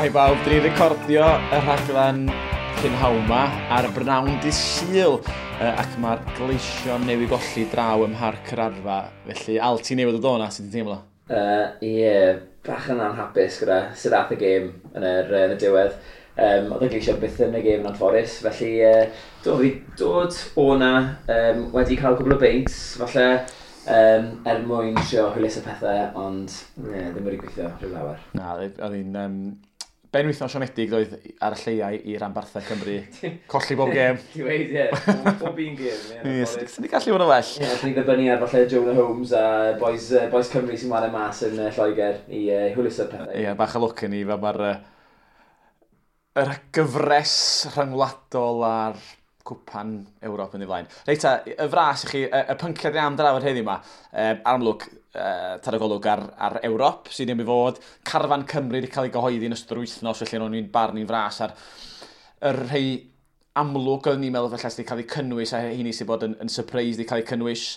Shwmae bawb, dyn ni'n recordio y rhaglen prynhawn 'ma ar brynawn dydd Sul, ac mae'r Gleision newydd golli draw ym Mharc yr Arfa. Felly, Al, ti newydd o o'na, sut ti'n teimlo? Ie, yeah, bach yn anhapus gyda sut ath y gêm yn y diwedd. Oedd y Gleision byth yn y gêm yn anffodus, felly do, fi dod o'na wedi cael cwbl o beints, falle, er mwyn trio hwyluso pethau, ond yeah, ddim wedi gweithio rhyw lawer. Na, oedd hi'n benwythnos siomedig oedd ar y lleiau i ranbarthau Cymru. Colli bob gêm. Ti'n dweud, ie. Bob un gêm. Ie, sy'n gallu fod yn well. Ie, sy'n ni ddibynnu ar falle Jonah Holmes a boys Cymru sy'n chwarae mas yn Lloegr i hwyluso'r pethau. Ie, bach o lwc yn ni, fel mae'r yr gyfres rhyngwladol a'r cwpan Ewrop yn ei flaen. Reit ta, y fras i chi, y pynciau ni am drafod heddiw yma, amlwg, tar y golwg ar Ewrop, sydd ddim i fod, carfan Cymru wedi cael ei gyhoeddi yn ystod yr wythnos, felly o'n i'n barnu'n fras ar y rhai amlwg oeddwn ni'n meddwl felly sydd wedi cael ei cynnwys, a hynny sydd bod yn surprise wedi cael ei cynnwys.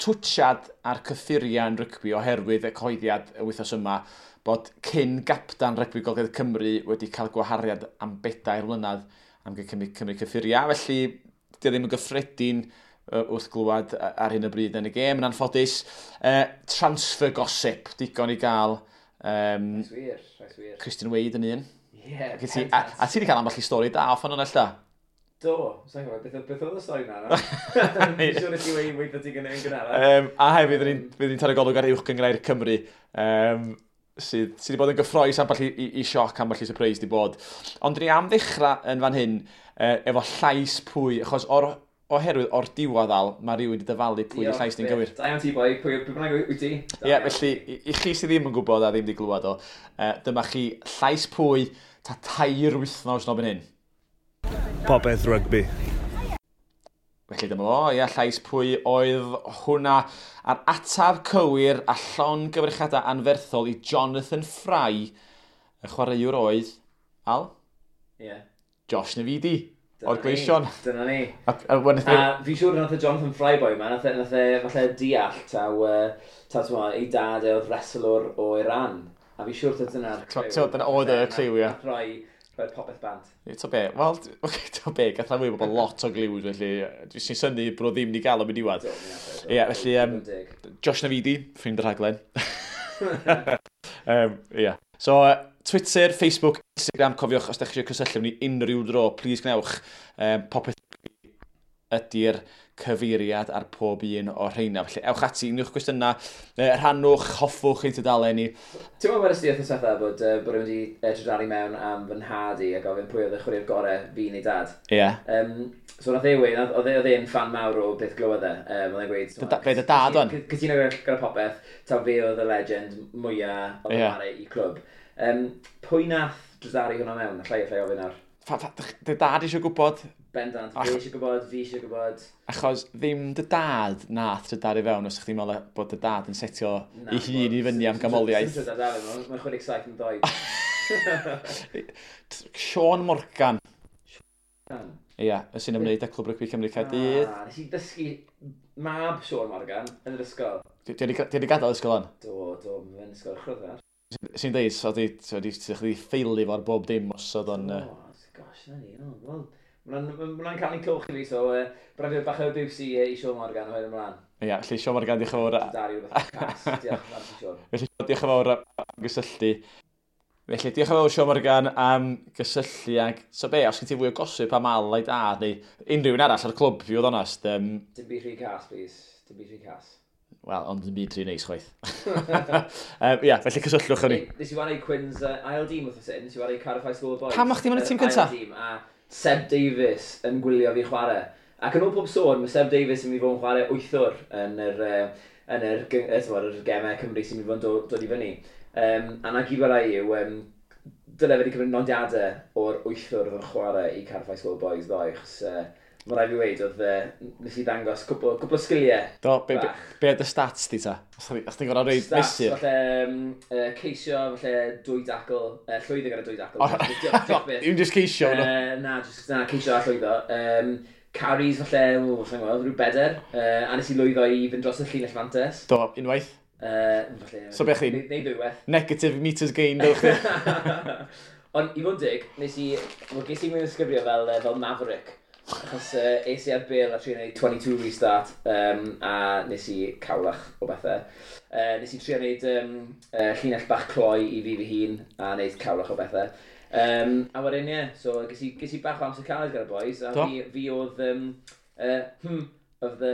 Twtsiad ar cyffuriau yn rygbi oherwydd y cyhoeddiad y wythnos yma bod cyn gapdan rygbi Gogledd Cymru wedi cael gwahariad am 4 mlynedd am cymryd cyffuriau. Felly, di ddim yn gyffredin wrth glywed ar hyn o bryd yn y gêm, yn anffodus. Transfer gossip, digon i gael. Rhaid wir, rhaid wir. Christian Wade yn un. Ie, yeah, a ti wedi cael ambell i stori da off o'n ella? Do, sa'n gwybod, beth oedd y stori na? Fi'n siŵr i ti wedi weithio ti yn gynharach. A hefyd, fydd ni'n taro golwg ar Uwch Gynghrair Cymru, sydd wedi bod yn gyffrous, ambell i sioc, ambell i surprise wedi bod. Ond ni am ddechrau yn fan hyn, efo llais pwy, achos oherwydd o'r diwedd Al, mae rhywun wedi dyfalu pwy y llais ni'n gywir. Da iawn ti, boi, pwy bynnag wyt ti? Ie, yeah, felly, i chi sydd ddim yn gwybod a ddim wedi glywed o, dyma chi llais pwy ta 3 wythnos nôl fan hyn. Popeth rygbi. Felly dyma fo, ia, llais pwy oedd hwnna. A'r atab cywir a llongyfarchiadau anferthol i Jonathan Fry, y chwaraewr oedd, Al? Ie. Yeah. Josh Navidi, o'r Gleision. Dyna ni. A fi'n siŵr nath y Jonathan Fry boy ma, nath e falle deall taw, ei dad e oedd wrestlwr o Iran. A fi'n siŵr taw dyna'r cliw. Dyna oedd y cliw, ie. Nath rhoi popeth bant. To be, wel, to be, gath rhan fwy o bobl lot o gliws, felly dwi'n sy'n synnu bod ddim wedi gael am y diwedd. Ie, felly, Josh Navidi, ffrind y rhaglen. Ie. So, Twitter, Facebook, Instagram, cofiwch os ydych chi eisiau cysylltu ni unrhyw dro, please gwnewch. Popeth ydy'r cyfeiriad ar pob un o'r rheina. Felly, ewch ati, unrhyw gwestiynau, rhannwch, hoffwch ein tudalen ni. Ti'n meddwl wedest ti wythnos diwetha bod rhywun wedi drydaru mewn am fy nhad i a gofyn pwy oedd y chwaraewr gorau, fi neu dad? Ie. So nath e weud, oedd e'n fan mawr o beth glywodd e. Oedd e'n gweud, Be dy dad o'n? Cytuno gyda popeth, taw fe oedd y legend mwyaf oedd yn chwarae i clwb. Pwy nath drydaru hwnna mewn? Allai ofyn nawr. Dy dad eisiau gwybod? Bendant, fi eisiau gwybod, fi eisiau gwybod. Achos ddim dy dad nath drydaru fewn, os chdi'n meddwl bod dy dad yn setio ei hun i fyny am gamoliaeth. Sy'n drydaru fewn, mae'n 67 yn doed. Sean Morgan. Sean? Ie, sy'n ymwneud â Clwb Rygbi Cymru Caerdydd. Nes i ddysgu mab Sean Morgan yn yr ysgol. Di wedi gadael ysgol o'n? Do, mae'n ysgol chryfach. Sy'n deud, so di ffeili fo'r bob dim os oedd o'n... Oh, gosh, na ni, wel... Mae'n cael ei clwch i fi, so braf i bach o abuse i Sean Morgan o hyn ymlaen. Ie, felly Sean Morgan, diolch yn fawr. Dari rhywbeth cas, diolch yn fawr, Sean. Felly, diolch yn fawr am gysylltu. Felly, diolch yn fawr Sean Morgan am gysylltu ag... So be, os gen ti fwy o gosip am Al a'i dad, neu unrhyw un arall ar y clwb, fi oedd onest. Dim byd rhy cas, please. Dim byd rhy cas. Wel, ond dim byd rhy neis chwaith. Ie, felly cysylltwch â ni. Nes i wario Cwins ail dîm wrth hyn, nes i wario Cardiff High School Boys. Pam o'ch ti'n mynd y tîm cyntaf? Ail dîm, a Seb Davies yn gwylio fi chwarae. Ac yn ôl pob sôn, mae Seb Davies yn mynd i fod yn chwarae wythwr yn yr gemau Cymru sy'n mynd i fod yn dod i fyny. A na gyd rai yw, dyle fe wedi cymryd nodiadau o'r wythwr oedd yn chwarae i Cardiff High School Boys ddoe, achos mae rhaid fi weud, oedd nes i ddangos cwpl o sgiliau. Do, be oedd y stats di ta? Os ti'n gorfod reid mesur? Stats, falle ceisio, falle 2 dacl, llwyddo gyda 2 dacl. Dim just ceisio? Na, just, na, ceisio a llwyddo. Carries, falle, sa'n gwybod, rhyw 4. A nes i lwyddo i fynd dros y llinell fantes. Do, unwaith? Falle, So be chdi? Neu ddwywaith. Negative meters gained, o'ch chi? Ond i fod yn dig, nes i, wel, ges i'n mynd ysgrifio fel Maverick. Achos es i ar bêl a trio gwneud 22 restart, a nes i cawlach o bethau. Nes i trio gwneud llinell bach cloi i fi fy hun, a wneud cawlach o bethau. A wedyn, ie, so ges i bach o amser caled gyda'r boys, a Do? fi oedd of the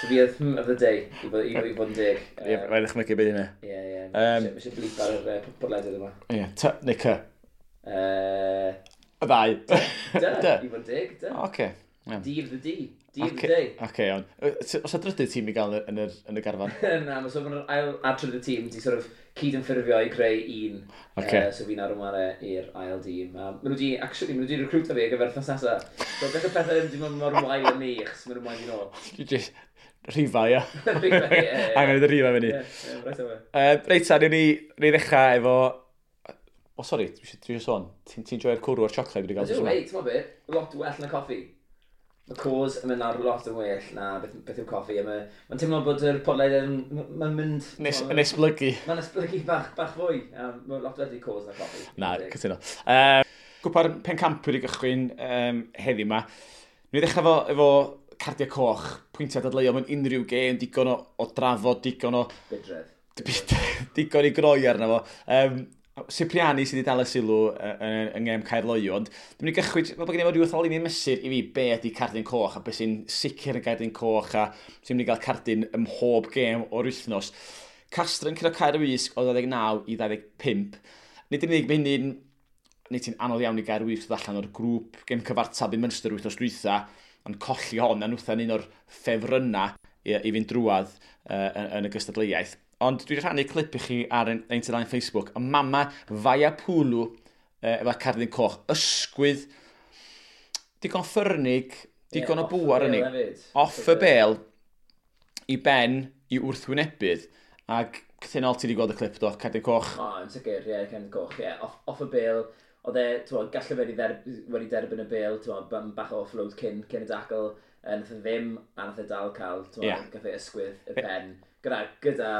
So fi oedd of the day, i fod yn deg. Ie, rhaid ddechmygu beth yna. Ie. Mae eisiau blip ar yr podlediad yma. Ie, T neu C. Y ddau. D, D. i fod yn deg, D. Oce. Iawn. D of the D. D of the Oce, day. Oce, iawn. Oes 'na drydydd tîm i gael yn y garfan? Na, mae so mae'r ail a trydydd tîm di sort of cyd yn ffurfio i creu un. Ocê. So fi'n ar ymwneud i'r ail dîm. Maen nhw di, actually, maen nhw di recruito fi ar gyfer wythnos nesaf. So beth y pethau ddim di mynd mor wael yn ni, achos maen nhw'n moyn fi nôl. Just rhifa, ia. Rhifa, ie. Angen i rhifa fyny. Ie, reit away. Reit ta, ni ddechrau efo. O, sori, dwi eisiau sôn. Ti'n ti joio'r cwrw o'r siocled wedi cael Ydw, tro yma? ei, ti'n be, lot well na coffi. Mae cos yn mynd ar lot yn well na beth yw coffi. A mae'n teimlo bod yr podlediad yn, mae'n mynd Yn esblygu. Mae'n esblygu bach fwy. Mae'n lot well i cos na coffi. Na, cytuno. Cwpan Pencampwyr i gychwyn heddiw yma. Ni ddechrau efo cardiau coch, pwyntiau dadleuol mewn unrhyw gêm, digon o drafod, digon o Bydredd. digon i groi arno fo. Cipriani sydd wedi dal y sylw yng ngêm Caerloyw, ond dwi'n mynd i gychwyn, fel bod gen i fo rhyw fath o linyn mesur i fi be ydy cardyn coch a beth sy'n sicr yn gardyn coch a sy'n mynd i gael cardyn ym mhob gêm o'r wythnos. Castre yn curo Caer Wysg o 29 i 25. Nid yn unig mae hynny'n nid ti'n anodd iawn i Gaer Wysg ddod allan o'r grŵp gêm cyfartal i Munster wythnos dwytha, ond colli hon, a nhwtha'n un o'r ffefrynnau i fynd drwadd yn y gystadleuaeth. Ond dwi wedi rhannu clip i chi ar ein tudalen Facebook. Y mama Vaiapulu efo cardyn coch. Ysgwydd, digon ffyrnig, digon o bŵar yn ei. Off y bel, i ben, i wrthwynebydd. Ac cythynol ti wedi gweld y clip do, cardyn coch. O, yn sicr, ie, cardyn coch, ie. Off y bel, oedd e, ti'n gallai fe wedi derbyn y bel, ti'n bach o offload cyn y dacl, nath e ddim, a nath e dal cael, ti'n gath e ysgwydd y pen, gyda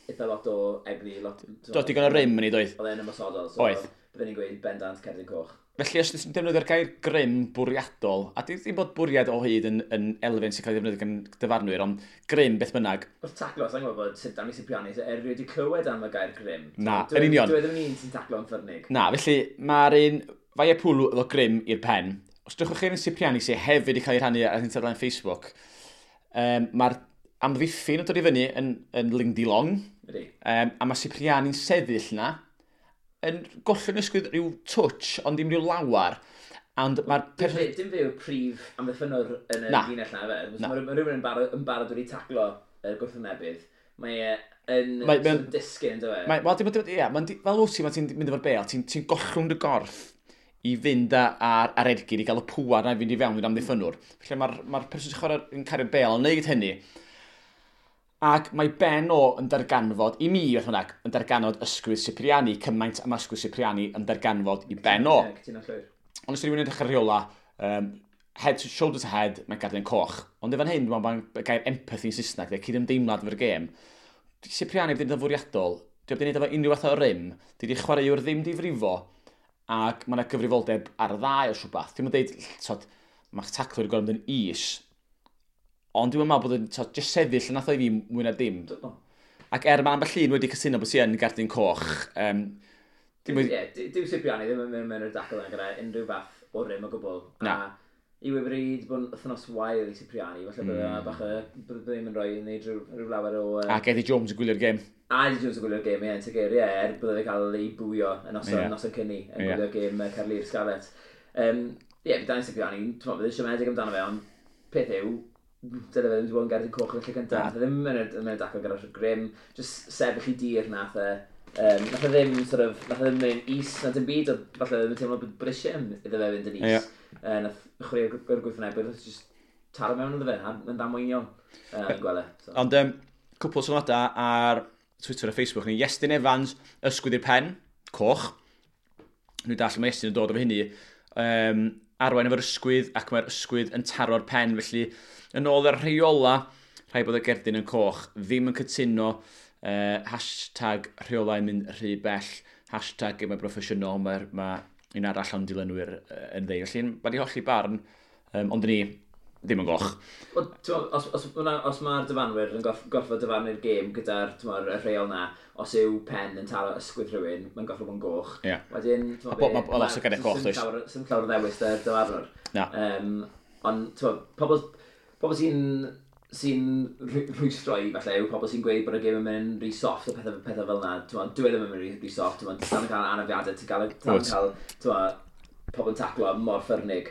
eitha lot o egni. Lot, Do, digon o rym yn ei doedd. Oedd e'n ymosodol, so Oedd. Byddwn ni'n gweud bendant cerdyn coch. Felly, os ti'n defnyddio'r gair grym bwriadol, a dim bod bwriad o hyd yn elfen sy'n cael ei ddefnyddio gan dyfarnwyr, ond grym beth bynnag. Wrth taclo, sa'n gwybod bod sut Danny Cipriani, so erioed wedi clywed am y gair grym. Na, yn union. Dwi ddim yn un sy'n taclo yn ffyrnig. Na, felly mae'r un Vaiapulu efo grym i'r pen. Os drychwch chi'r un Cipriani sy'n hefyd wedi cael ei rhannu ar ein tudalen Facebook, mae'r amddiffyn yn dod i fyny yn Lindy Long, Ydy. A mae Cipriani'n sefyll na, yn gollwng ysgwydd rhyw touch, ond dim rhyw lawar. Ond mae'r Dim fe yw'r prif amddiffynwr yn y Na. linell na, fe. Na. Mae rhywun yn barod wedi taclo y gwrthwynebydd. Mae e yn sort of disgyn, dyw e? Mae, wel, ie, mae'n fel wyt ti, pan ti'n mynd efo'r bel, ti gollwng dy gorff i fynd ar ergyd, i gael y pŵar na i fynd i fewn i'r amddiffynwr. Felly mae'r person sy'n chwarae yn cario'r bel yn neud hynny. Ac mae ben o yn darganfod, i mi, beth bynnag, yn darganfod ysgwydd Cipriani, cymaint am ysgwydd Cipriani yn darganfod i ben o. Ie, cytuno llwyr. Ond os rhywun yn edrych ar rheola, head to, shoulder to head, mae'n gardyn coch. Ond efo'n hyn, dwi'n meddwl bod gair empathy yn Saesneg, de, cydymdeimlad efo'r gêm. Di Cipriani wedi gwneud yn fwriadol, di wedi gwneud efo unrhyw fath o rym, di wedi chwaraewr ddim di frifo, ac mae yna gyfrifoldeb ar y ddau o rhywbeth. Dwi'n dweud, tod, mae'ch taclwyr yn gorfod mynd yn is, ond dwi'n meddwl bod yn, tod, jyst sefyll yn nath o i fi mwy na dim. Do. Ac er mae ambell un wedi cytuno bod ti yn gardyn coch, dim wedi Ie, dyw Cipriani ddim yn mynd mewn i'r dacl yna gyda unrhyw fath o rym o gwbl. Na. A i wedi bod yn wythnos wael i Cipriani, falle bydde bach o, bydde ddim yn rhoi yn neud rhyw lawer o Ac Eddie Jones yn gwylio'r gêm. A Eddie Jones yn gwylio'r gêm, ie, yn sicr, ie, er bydde fe cael ei bwio yn noson, noson cynni, yn gwylio'r gêm Caerlŷr Scarlets. Ie, yeah, Danny Cipriani, ti'n meddwl, bydde siomedig amdano fe, ond peth yw, dyle fe ddim wedi bod yn gerdyn coch yn y lle cyntaf. Nath e ddim yn y dacl gyda'r grym, just sefyll i dir nath e. Nath e ddim, sort of, nath e ddim mynd is na dim byd, ond falle ddim yn teimlo bod eisiau iddo fe fynd yn is. Nath chwarae'r gwrthwynebydd, nath just taro mewn iddo fe, a yn ddamweiniol yn gweld e. So. Ond cwpl o sylwadau ar Twitter a Facebook ni. Iestyn Evans, ysgwydd i'r pen, coch. Nhw'n dall mae Iestyn yn dod efo hynny. Arwain efo'r ysgwydd ac mae'r ysgwydd yn taro'r pen. Felly, yn ôl yr rheola, Rhaid bod y gerdyn yn coch, ddim yn cytuno, #rheolau'n mynd rhy bell, #gemau broffesiynol, mae ma un arall o'n dilynwyr yn ddeud. Felly, mae di hollti barn, ond ni ddim yn goch. Wel, t'mo, os mae'r dyfarnwyr yn gorfod dyfarnu'r gêm gyda'r, t'mo, y rheol na, os yw pen yn taro ysgwydd rhywun, mae'n gorfod bod yn goch. Wedyn, t'mo, Ma' lot o geiriau coch, does? Sim llawer o ddewis da'r dyfarnwr. Na. Ond, t'mo, pobl sy'n rhwystro i, falle, yw pobl sy'n gweud bod y gêm yn mynd rhy soft a pethau fel yna. T'mo, dyw e ddim yn mynd rhy soft. T'mo, ti'n dal yn cael anafiadau, ti'n dal yn cael, t'mo, pobl yn taclo mor ffyrnig.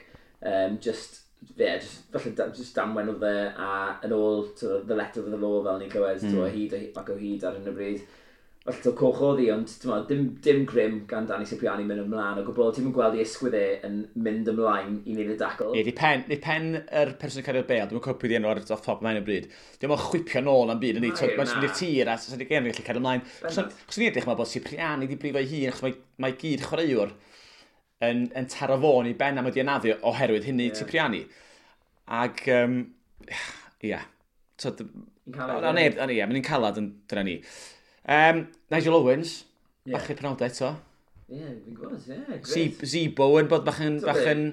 Just, yeah, just, falle, just damwen oedd e, a yn ôl to the letter of the law fel ni'n clywed, mm. hyd ac o hyd ar hyn o bryd. Felly to coch oedd hi, ond t'mo, dim grym gan Danny Cipriani mynd ymlaen o gwbl. Ti'n mynd gweld i ysgwydd e yn mynd ymlaen i wneud y dacl. Ie, di pen yr person yn cario'r bêl, dwi'n cofio pwy di enw ar off top ymlaen o bryd. Dwi'n meddwl chwipio nôl am byd, yndi, Na, mae'n mynd i'r na. tir a sa'n di gêm yn gallu cario ymlaen. Chos ni'n edrych, mae bod Cipriani di brifo ei hun, achos mae gyd chwaraewr yn taro fo'n i ben am wedi anafu oherwydd hynny Cipriani. Ac, ia, Yn caled, O, ie. neb, o, ie, mae'n calad yn dyna ni. Nigel Owens, bachu'r penawdau eto. Ie, fi'n gwybod, ie, grêt. Zebo yn bod bach yn T'o' bach be? yn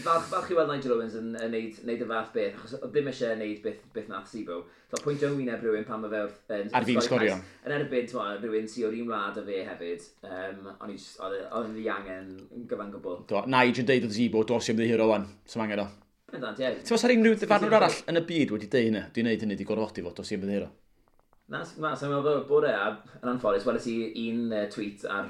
Falch i weld Nigel Owens yn neud y fath beth, achos oedd ddim eisiau neud beth nath Zebo. So, pwyntio yn wyneb rhywun pan mae fe wrth yn Ar fin sgori sgorio. cais. Yn erbyn, t'mo, rhywun sy o'r un wlad a fe hefyd. O'n i just, oedd e'n ddiangen yn gyfan gwbl. Do, Nigel yn deud wrth Zebo, dos i ymddiheuro wan, sy'n angen o. Bendant, ie. Ti'n meddwl unrhyw ddyfarnwr arall yn y byd wedi deud hynny? Dwi'n neud hynny, di gorfodi fo, dos i ymddiheuro. Na, sa'n meddwl bod e, a yn anffodus, weles i un tweet ar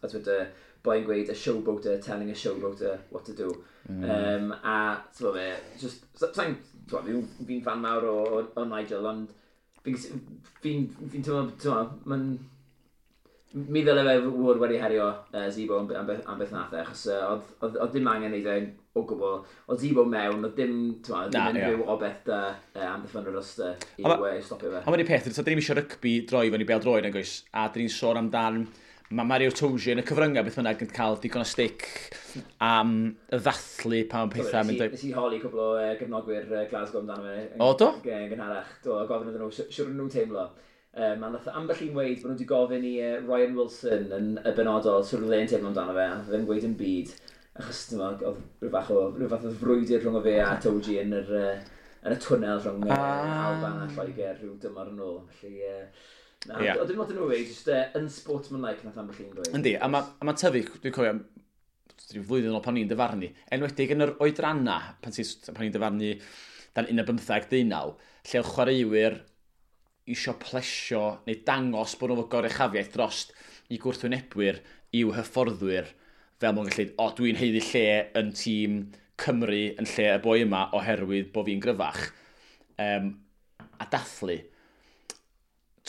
Twitter, boi'n gweud "a showboater telling a showboater what to do". A, ti'n gwbod be, just, sa'n, ti'n gwbod, fi'n fan mawr o Nigel, ond fi'n teimlo, ti'n gwbod, mi ddyle fe fod wedi herio Zebo am beth nath e, achos oedd dim angen neud e o gwbl. Oedd Zebo mewn, oedd dim, ti'n gwbod, Na, dim ie. unrhyw obeth da amddiffynwyr Ulster i, i stopio fe. A mae'n peth, so, dyn ni'n eisiau rygbi droi fyny bêl droed, nag oes? A dyn ni'n sôn amdan, mae Mario Toji yn y cyfryngau beth bynnag yn cael digon o stick am y ddathlu pan mae pethau mynd Nes i holi cwbl o gefnogwyr Glasgow amdano fe. O, do? Gynharach. Do, a gofyn iddyn nhw, siwr nhw'n teimlo. A nath ambell un weud bod nhw wedi gofyn i Ryan Wilson yn y benodol siwr oedd e'n teimlo amdano fe, a nath e ddim gweud yn byd. Achos, ti'n gwbod, oedd rhyw fath o frwydr rhwng o fe a Toji yn y twnnel rhwng Alban a Lloegr rhyw dymor yn ôl. Felly, na, oedd dim lot yn nhw weud, just unsportsmanlike nath ambell un gweud. Yndi, a mae ma tyfu, dwi'n cofio, rhyw flwyddyn yn ôl pan ni'n dyfarnu, enwedig yn yr oedranna, pan ni'n dyfarnu dan 15, 19, lle oedd chwaraewyr isio plesio neu dangos bod nhw efo goruchafiaeth drost i gwrthwynebwyr i'w hyfforddwyr, fel mwyn gallu, o, dwi'n haeddu lle yn tîm Cymru yn lle y boi yma oherwydd bod fi'n gryfach. A dathlu.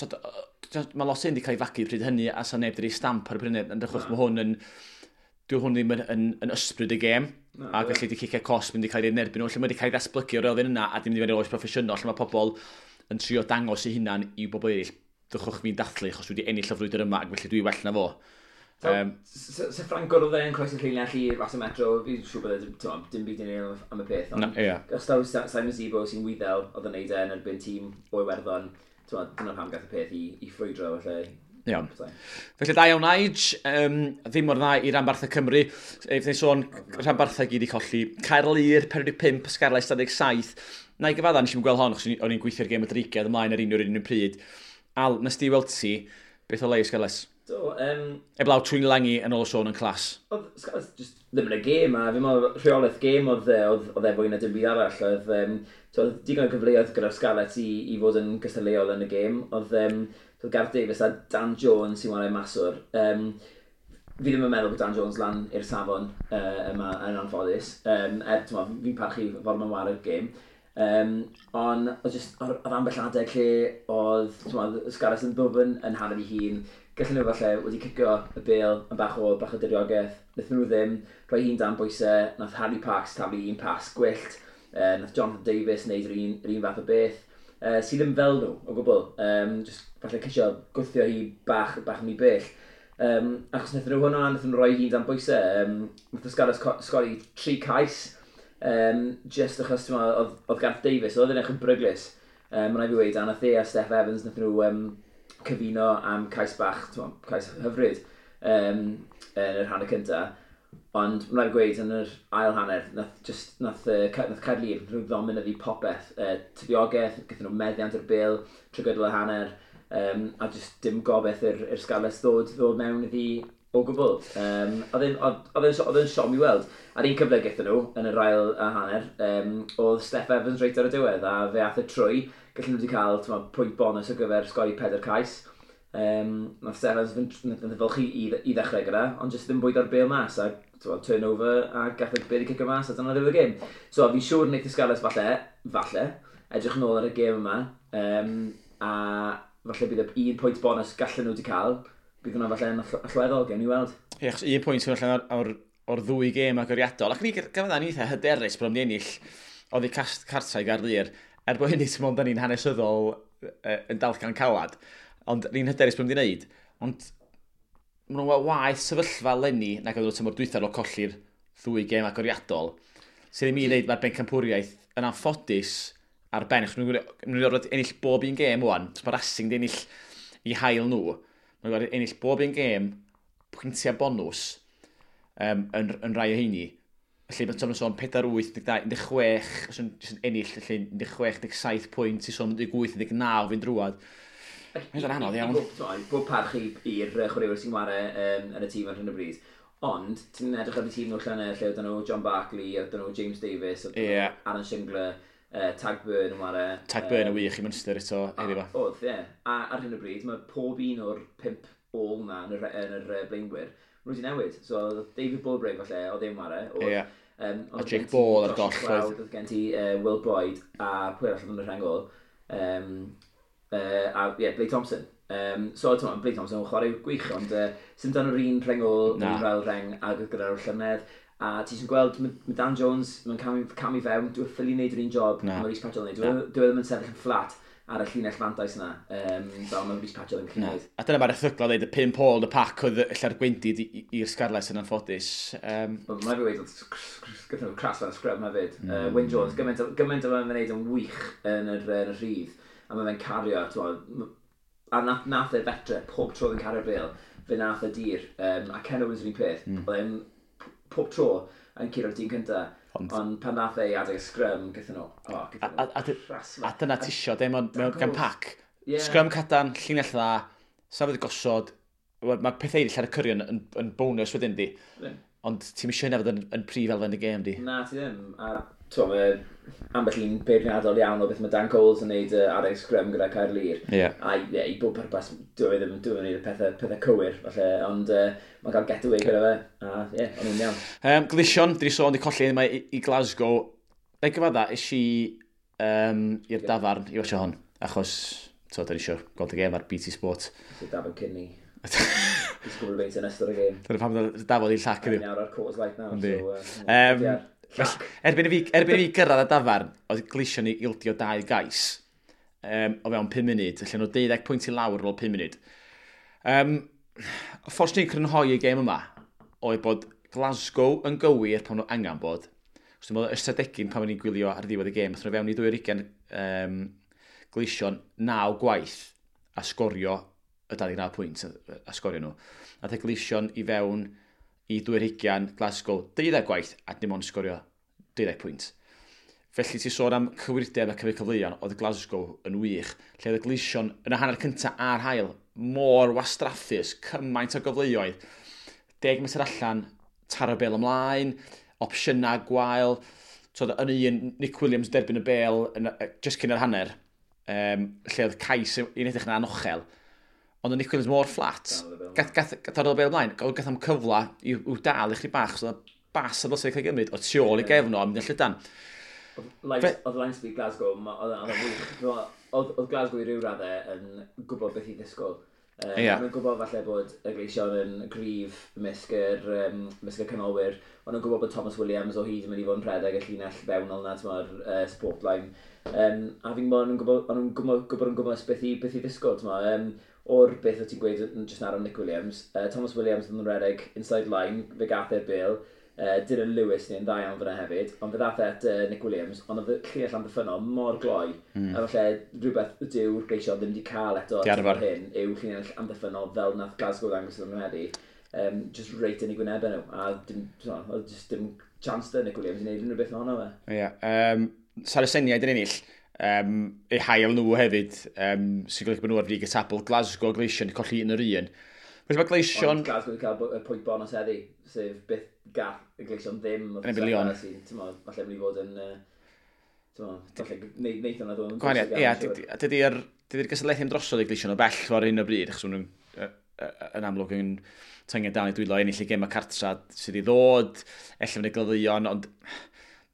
Mae lot hyn wedi cael ei fagu pryd hynny a sa neb wedi rhoi stamp ar y pryd hynny. Yn achos mae hwn yn... Dyw hwn ddim yn ysbryd y gêm. Na, A felly di cicio cosb mynd i cael ei nerbyn nhw. Lle mae wedi cael ei ddatblygu o'r elfen yna a dim wedi fynd i'r oes proffesiynol. Lle mae pobl yn trio dangos eu hunan i bobl eraill. Dwchwch fi'n dathlu achos dwi wedi ennill y frwydr yma ac felly dwi well na fo. So, se Franco oedd e'n croesi'r llinell i Ras y Metro, fi'n siŵr bod e, t'mo, dim byd i neud am y peth. Na, Ond ie. os daw Simon Zebo sy'n Wyddel oedd yn neud e yn erbyn tîm o Iwerddon, t'mo, dyna pam gath y peth i ffrwydro, felly. Iawn. Felly da iawn Nige, ddim mor dda i ranbarthau Cymru. Fydd ni'n sôn rhanbarthau gyd i colli. Caerlŷr 45, Scarlets 27. Na i gyfadda, nes i'm gweld hon, achos o'n i'n gweithio'r gêm y Dreigiau ymlaen ar un pryd. Al, nes di weld ti, beth o le i Scarlets? Do, Eblaw Tuilagi yn ôl y sôn yn class. Oedd Scarlets just ddim yn y gêm, a fi'n meddwl rheolaeth gêm oedd e fwy na dim byd arall. Oedd, so oedd digon o gyfleoedd gyda'r Scarlets i fod yn gystadleuol yn y gêm. Oedd Gareth Davies a Dan Jones sy'n chwarae maswr. Fi ddim yn meddwl bod Dan Jones lan i'r safon yma yn anffodus. Er, t'mo, fi'n parchu ffordd mae'n ware'r gêm. Ond oedd just, oedd ambell adeg lle oedd, t'mo, Scarlets yn ddwfn yn hanner ei hun. Gallen nhw falle wedi cicio y bêl yn bach o diriogaeth. Wnaethon nhw ddim, rhoi hun dan bwysau, nath Harry Parkes taflu un pas gwyllt, nath Jonathan Davies wneud yr un fath o beth, sydd ddim fel nhw o gwbl. Just falle ceisio gwthio hi bach yn ei bell. Achos wnaethon nhw hwnna, wnaethon nhw rhoi hun dan bwysau. Nath y Scarlets sgori 3 cais, just achos, ti'n meddwl, oedd Gareth Davies, oedd yn eich yn bryglus. Mae'n rhaid fi weud, a nath e a Steff Evans, nath nhw cyfuno am cais bach, cais hyfryd yn yr hanner cyntaf. Ond mae'n rhaid gweud, yn yr ail hanner, nath Caerlŷr nhw ddominyddu popeth. Tiriogaeth, gaethon nhw meddiant yr bêl trwy gydol y hanner, a just dim gobeith i'r Scarlets ddod mewn iddi o gwbl. Oedd e'n siom i weld. A'r un cyfle gaethon nhw yn yr ail hanner, oedd Steff Evans reit ar y diwedd, a fe ath e trwy. Gallen nhw wedi cael, t'mo, pwynt bonus ar gyfer sgori 4 cais. Nath Steff Evans fynd fylchu i ddechrau gyda, ond jyst ddim bwydo'r bêl mas, a, t'mo, turnover, a gath y bêl i cicio mas, a dyna ddiwedd y gêm. So fi'n siŵr wneith y Scarlets falle, edrych yn ôl ar y gêm yma, a falle bydd y un pwynt bonus gallen nhw wedi cael, bydd hwnna falle yn allweddol, gewn ni weld. Ie, achos un pwynt sy'n allan o'r ddwy gêm agoriadol. Ac ni gyfadda ni eitha hyderus bod nhw'n ennill oddi cartra i Gaerlŷr. Er bod hynny, ti'n meddwl, da ni'n hanesyddol yn dalcan calad. Ond ni'n hyderus bod nhw'n wneud. Ond maen nhw'n waeth sefyllfa leni nag oedd nhw tymor dwytha ar ôl colli'r ddwy gêm agoriadol. Sydd ddim i wneud, mae'r bencampwriaeth yn anffodus ar ben. Achos maen nhw'n gorfod ennill bob un gêm wan. So mae Racing di ennill i hail nhw. Maen nhw'n gorfod ennill bob un gêm, pwyntiau bonws yn rai o heini. Felly mae Tom yn sôn 4, 8, 12, 16, os yn jyst yn ennill, felly 16, 17 pwynt, i sôn 18, 19 fynd drwad. Mae'n anodd iawn. Bob parch i'r chwaraewyr sy'n chwarae yn y tîm ar hyn o bryd. Ond, ti'n edrych ar y tîm nhw llynedd, lle oedd nhw John Barclay, oedd nhw James Davis, oedd nhw Aaron Shingler, Tadhg Beirne yn chwarae. Tadhg Beirne yn wych i Munster eto heddiw fa. Oedd, ie. A ar hyn o bryd, mae pob un o'r 5 ôl na yn yr blaenwyr, maen nhw wedi newid. So, oedd David Bulbrig falle, oedd e'n chwarae. Oedd, A oedd Jake gen ti Ball ar Josh goll, McLeod, oedd. Oedd gen ti Will Boyde a pwy arall oedd yn y rheng ôl. A ie, yeah, Blade Thompson. So, ti'n Blade Thompson yn chwarae gwych, ond sy'n dan yr un rheng ôl, Na. yr un fel rheng ag oedd gyda'r llynedd. A ti sy'n gweld, ma Dan Jones, mae'n camu fewn, dwi ffili wneud yr un job Na. mae Rhys Patchell yn neud. Dwi ddim yn sefyll yn fflat ar y llinell fantais yna, fel mae Rhys Patchell yn gallu Na. neud. A dyna mae'r erthygla dweud, y 5 ôl yn y pac oedd ella'r gwendid i'r Scarlets yn anffodus. Ond Mae'n fi wedi oedd gyda nhw crass fel scrum hefyd. Wyn Jones, gymaint o fe'n wneud yn wych yn y rhydd, a mae fe'n cario, t'mo, a nath e fetre pob tro oedd yn cario'r bêl, fe nath e dir, a Ken Owens yr un peth, oedd e'n pob tro yn curo'r dyn cynta, ond pan nath e i adeg y scrum, gaethon nhw, oh, gaethon nhw crass A dyna ti isio, de, mewn gan pac. Scrum cadarn, llinell dda, safod gosod, mae pethau eraill ar y cyrion yn bonus wedyn di. Ond ti'n isio hynna fod yn prif elfen y gêm di. Na, ti ddim. A t'mo, mae ambell un beirniadol iawn o beth mae Dan Coles yn neud adeg scrum gyda Caerlŷr. A ie, i bob pwrpas, dwi ddim yn neud y pethau cywir, falle, ond mae'n cael getaway gyda fe. A ie, o'n nhw'n iawn. Gleision, dwi sôn di colli yma i Glasgow. Na i gyfadda, es i i'r dafarn i watcho hon, achos so, da ni eisiau gweld y gêm ar BT Sport. So David Kinney. He's gwybod beint yn ystod y gêm. Dyna pam dafod i'r llac Yn iddi. nawr ar Coors Light now. Yndi. So, Felly, erbyn i fi gyrraedd y dafarn, oedd Gleision i ildio dau gais o fewn 5 munud, felly nhw 12 pwynt i lawr ar ôl 5 munud. Y ffordd ni'n crynhoi y gêm yma oedd bod Glasgow yn gywir pan nhw angen bod. Os dwi'n meddwl ystadegyn pan o'n i'n gwylio ar ddiwedd y gêm, athyn nhw fewn i 20 Gleision 9 gwaith a sgorio y 29 pwynt a sgorio nhw. Ath y Gleision i fewn i 20 Glasgow 12 gwaith a dim ond sgorio 12 pwynt. Felly ti sôn am cywirdeb a cyfri cyfleoedd, oedd Glasgow yn wych. Lle oedd y Gleision yn y hanner cyntaf a'r hail mor wastraffus, cymaint o gyfleoedd. 10 metr allan, taro bel ymlaen, opsiynau gwael. So, yn un, Nick Williams derbyn y bel yn, just cyn yr hanner, lle oedd cais i'n edrych yn anochel. Ond oedd Nick Williams mor fflat. Dal y bêl. Gath ar y bel ymlaen, gath am cyfle i'w dal i chdi bach, so oedd bas a ddylse cael ei gymryd o tu ôl i gefn o a mynd yn llydan. Oedd line speed Glasgow, oedd o'n wych. Oedd Glasgow i ryw raddau yn gwybod beth i ddisgwyl. O'n nhw'n gwybod falle bod y Gleision yn gryf mysg y canolwyr. O'n nhw'n gwybod bod Thomas Williams o hyd yn mynd i fod yn rhedeg y llinell fewnol na, t'mod, support line. A fi'n gwybod, o'n nhw'n gwybod yn gwybod beth i ddisgwyl, t'mod. O'r beth o ti'n gweud yn just nawr am Nick Williams, Thomas Williams yn rhedeg inside line, fe gath e'r bêl. Dylan Lewis neu'n dda iawn fyna hefyd, ond fe ddath e at Nick Williams, ond oedd y llinell amddiffynnol mor gloi, a falle rhywbeth dyw'r Gleision ddim wedi cael eto hyn, yw llinell amddiffynnol fel nath Glasgow ddangos iddyn nhw heddi, just reit yn ei gwynebau nhw, a dim, so, oedd just dim chance da Nick Williams i wneud unrhyw beth ohono fe. Ie, yeah, Saraceniaid yn ennill, eu hail nhw hefyd, sy'n golygu bod nhw ar frig y tabl. Glasgow Gleision colli 1-1. Felly mae Gleision. Ond Glasgow wedi cael y pwynt bonus heddi, sef byth gath y Gleision ddim. Yn erbyn Lyon. Falle mynd i fod yn, falle neith hwnna ddod yn Gwahaniaeth, ie, dydy'r gystadleuaeth ddim drosodd i Gleision o bell ar hyn o bryd, achos maen nhw'n yn amlwg yn tynged dal i dwylo ennill y gêm y cartra sydd i ddod, ella fynd y Glyddeuon, ond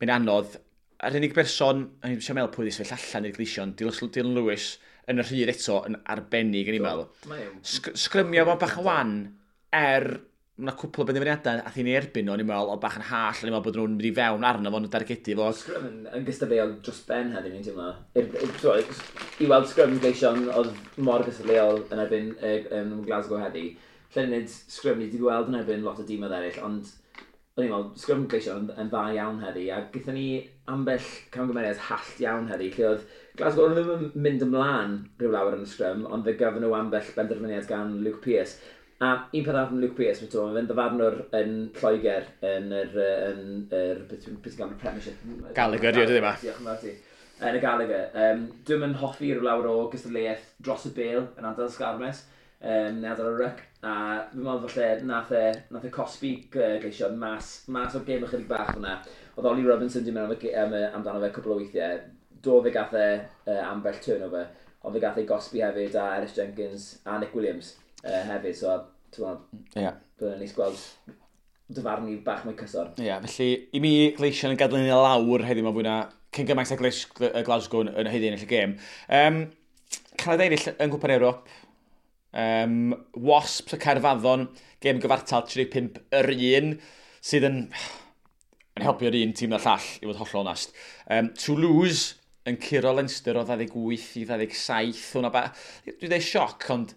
mae'n anodd. A'r unig berson, o'n i'n eisiau meddwl pwy wedi sefyll allan i'r Gleision, Dylan Lewis, yn y rhydd eto yn arbennig yn i'n meddwl. Sgrymio fo bach yn wan, mae yna cwpl o benderfyniadau a thi'n ei erbyn nhw, o'n i'n meddwl, o bach yn hall, o'n i'n meddwl bod nhw'n mynd i fewn arno fo'n dargedu fo. Sgrym yn gystadleuol dros ben heddiw, ni'n teimlo. I weld sgrym Gleision oedd mor gystadleuol yn erbyn Glasgow heddi. Lle nid sgrym ni wedi gweld yn erbyn lot o dîmoedd eraill, ond o'n i'n meddwl, sgrym Gleision yn dda iawn heddi, a gyda ni ambell camgymeriad hallt iawn heddi, lle oedd Glasgow o'n ddim yn mynd ymlaen rhyw lawer yn y sgrym, ond fe gafon nhw ambell benderfyniad gan Luke Pearce. A un peth arall am Luke Pearce, mae fe'n ddyfarnwr yn Lloegr, yn yr, yn yr, beth ti'n gael, Premiership. Gallagher, ie, dydy ma. Diolch yn fawr ti. Yn y Gallagher. Dwi'm yn hoffi rhyw lawer o gystadleuaeth dros y bêl yn ardal Sgarmes, neu ardal y ryc, a fi'n meddwl falle nath e cosbi Gleision mas o'r gêm ychydig bach fyna. Oedd Ollie Robinson di mynd amdano fe cwpl o weithiau. Do fe gath e ambell turnover, ond fe gath e gosbi hefyd a Ellis Jenkins a Nick Williams hefyd, so ti'n meddwl, yeah, byddai'n neis gweld dyfarnu bach mwy cyson. Ie, yeah, felly i mi Gleision yn gadael ni lawr heddiw ma fwy na cyn gymaint â Glasgow yn haeddu ennill y gêm. Canada ennill yng Nghwpan Ewrop. Wasps y Caerfaddon, gêm gyfartal 35 yr un, sydd yn helpu'r un tîm na'r llall, i fod hollol onast. Toulouse yn curo Leinster o 28 i 27. Hwna dwi'n dweud sioc, ond